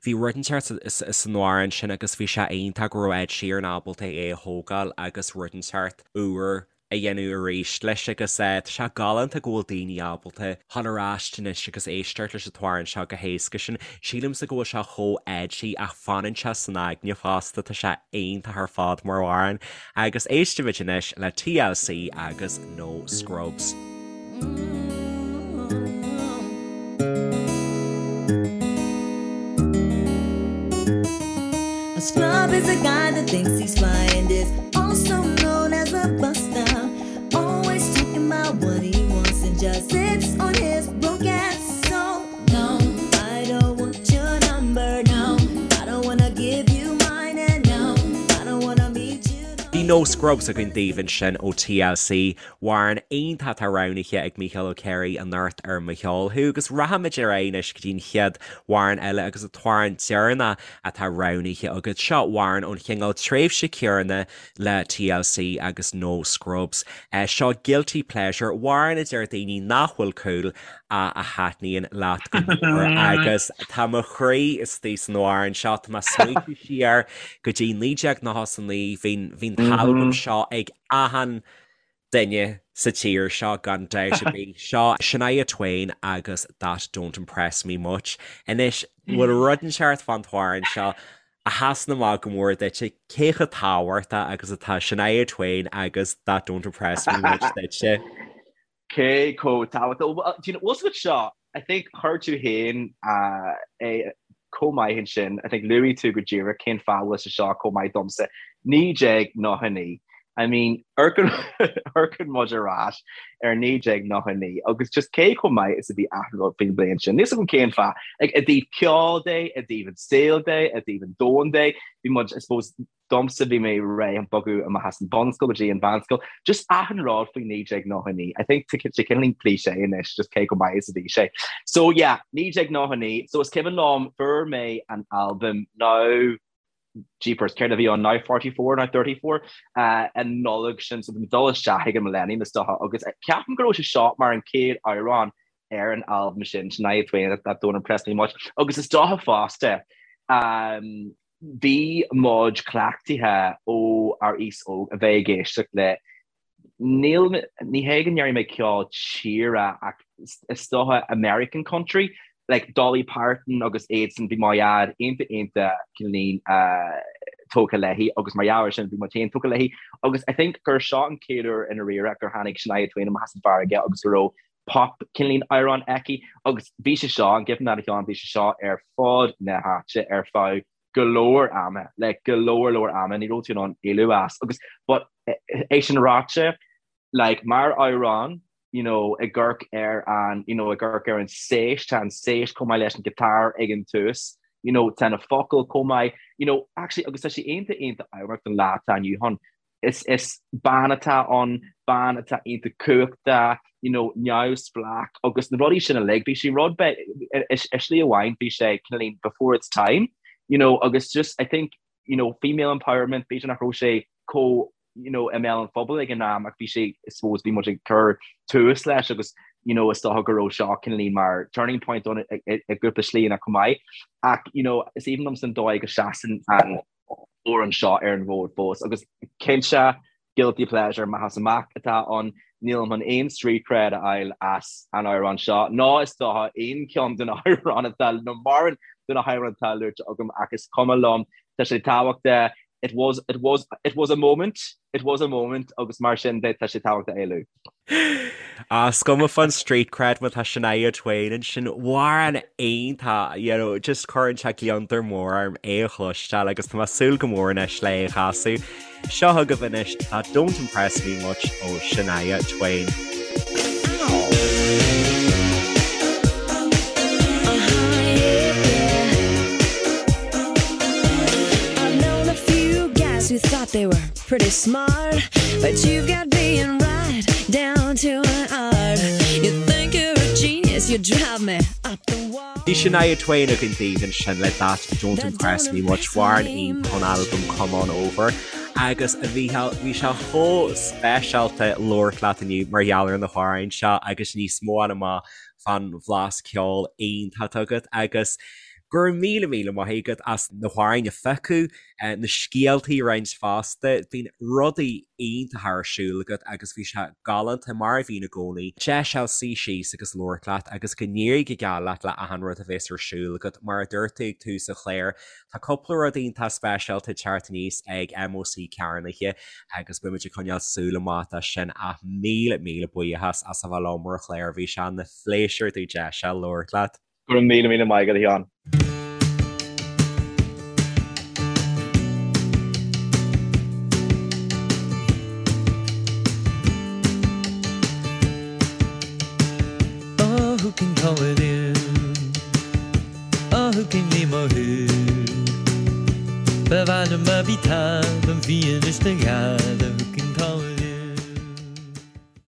bhí rud inteacht san amhrán sin agus bhí sé iontach go raibh Ed Sheeran ábalta é a thógáil agus rud inteacht úr a dhéanamh arís leis agus tá sé galánta go bhfuil daoine ábalta dhul ar ais anois agus éisteacht leis an t-amhrán seo go héasca sin. Sílimse go bhfuil sé chomh edgy ach fanann sé san aigne fosta, tá sé iontach ar fad mar amhrán. Agus éistimid anois le TLC agus No Scrubs. A scrub is a guy that thinks he's fly and is also known as a buster. Always talking about what he wants and just sits on his broke ass. So no, I don't want your number. No, I don't wanna give you mine. And no, I don't wanna meet you. Bhí No Scrubs againn daoibh ansin ó TLC. Amhrán iontach atá roghnaithe ag Mícheál Ó Céirigh anocht ar Mo Cheol Thú agus rachaimid ar aghaidh anois go dtí an chéad amhrán eile agus an t-amhrán deireanach atá roghnaithe agat. Seo amhrán ón chineál tréimhse céanna le TLC agus No Scrubs. Seo Guilty Pleasure, amhrán a deir daoine nach bhfuil cool ach a thaitníonn leat go mór agus tá mo chroí istigh san amhrán seo, tá mé ag smaointiú siar go dtí 1999, bhí an t-albam seo ag achan duine sa tír seo gan dabht ar bith. Seo Shania Twain agus That Don't Impress Me Much. Anois, bhfuil rud inteacht fán t-amhrán seo a sheasann amach go mór duitse, cé chomh tábhachtach agus atá Shania Twain agus That Don't Impress Me Much duitse? Cé chomh tábhachtach? Bhuel, do you know, bhfuil 's agat seo, I think chuir tú féin é chomh maith ansin, I think luaigh tú go díreach cén fáth a bhfuil sé seo chomh maith domsa. 1999, I mean, amharcann muid ar ais ar 1999 agus just cé chomh maith is a bhí achan rud faoin bhliain sin. Níl 's agam cén fáth. Like, i dtaobh ceoil de, i dtaobh an saol de, i dtaobh an domhain de, bhí muid, I suppose, Domsa bhí mé réidh chun bogadh amach as an bunscoil go dtí an mheánscoil. Just achan rud faoi 1999. I think tá sé cineáilín cliché anois just cé chomh maith is a bhí sé. So yeah, 1999, so is cuimhin liom fuair mé an albam now jeepers, céard a bhí ann now 44 nó 34 uh, an Nollaig sin so bhí mé dul isteach ag an Millennium is dócha agus ceapaim go raibh sé seo mar an chéad amhrán ar an albam sin, Shania Twain, That Don't Impress Me Much. Agus is dócha fosta um, Bhí muid cleachtaithe ó ár aois óg a bheith ag éisteacht le, níl, ní hé go ndéarfaidh mé ceol tíre ach is dócha American country, like Dolly Parton agus iadsan, bhí mo dhaid iontach iontach cineáilín tógtha léi agus mar gheall air sin bhí muid féin tógtha léi agus I think gur seo an chéad uair i ndáiríre gur tháinig Shania Twain amach as an bhfarraige agus go raibh pop cineáilín amhrán aici agus bhí sé seo, an gcuimhin leat a Sheáin, bhí sé seo ar fud na háite ar feadh go leor ama, like go leor leor ama, ní raibh tú in ann éalú as agus but é sin ráite, like mar amhrán, you know, ag amharc ar an, you know, ag amharc ar an séis, tá an séis chomh maith leis an guitar ag an tús, you know, tá na focail chomh maith, you know, actually agus tá sé iontach iontach ábharach don lá atá inniu ann. Is is bean atá ann, bean atá iontach cumhachtach, you know, neamhspleách agus na rudaí sin uilig, bhí sé rud beag, i slí amháin bhí sé cineáilín before its time, you know, agus just I think, you know, female empowerment, b'fhéidir nach raibh sé chomh, you know, i mbéal an phobail ag an am ach bhí sé, I suppose, bhí muid ag cur tús leis agus. You know, is dócha go raibh seo cineáilín mar turning point ann i gcúpla slíanna chomh maith. Ach, you know, is aoibhinn liomsa an dóigh go seasann an amhrán seo ar an bhfód fós. Agus cinnte, guilty pleasure amach is amach atá ann. Nílim chun aon street cred a fháil as an amhrán seo, ná is dócha aon cheann de na hamhráin atá, nó mórán de na hamhráin atá luaite agam, ach is cuma liom. Tá sé tábhachtach. It was, it was, it was a moment, it was a moment agus mar sin de tá sé tábhachtach é a lua. Ah, is cuma fán street cred má tá Shania Twain ansin, amhrán iontach, you know, just cuireann sé gliondar mór orm é a chloisteáil agus tá mé ag súil go mór anois le é a chasadh. Seo chugaibh anois That Don't Impress Me Much ó Shania Twain. Pretty smart, but you've got being right down to an art. You think you're a genius, you drive me up the wall. Bhí Shania Twain againn daoibh ansin le That Don't Impress Me Much, amhrán iontach ón albam Come On Over agus a Mhícheáil, bhí sé chomh speisialta labhairt leat inniu mar gheall ar na hamhráin seo agus níos mó a fháil amach fán bhlas ceoil iontach atá agat agus go raibh míle míle maith agat as na hamhráin a phiocadh, na scéaltaí a roinnt fosta. Bíonn rudaí iontacha ar siúl agat agus bhí sé galánta, mar a bhíonn i gcónaí, deis a fháil suí síos agus labhairt leat agus go n-éirí go geal leat le achan rud a bhéas ar siúl agat. Mar a dúirt tú ag tús an chláir, tá cúpla rud iontach speisialta ag teacht aníos ag MÓC Cearnaithe agus beimid ag coinneáil súil amach dó sin ach míle míle buíochas as a bheith liom ar an chlár, bhí sé ina phléisiúr domh deis a fháil labhairt leat. Go raibh míle míle maith agat, a Sheáin. Oh, who can call it in? Oh, who can name a who? Ba mhaith liom a bhí talamh bhí anois do ghealladh.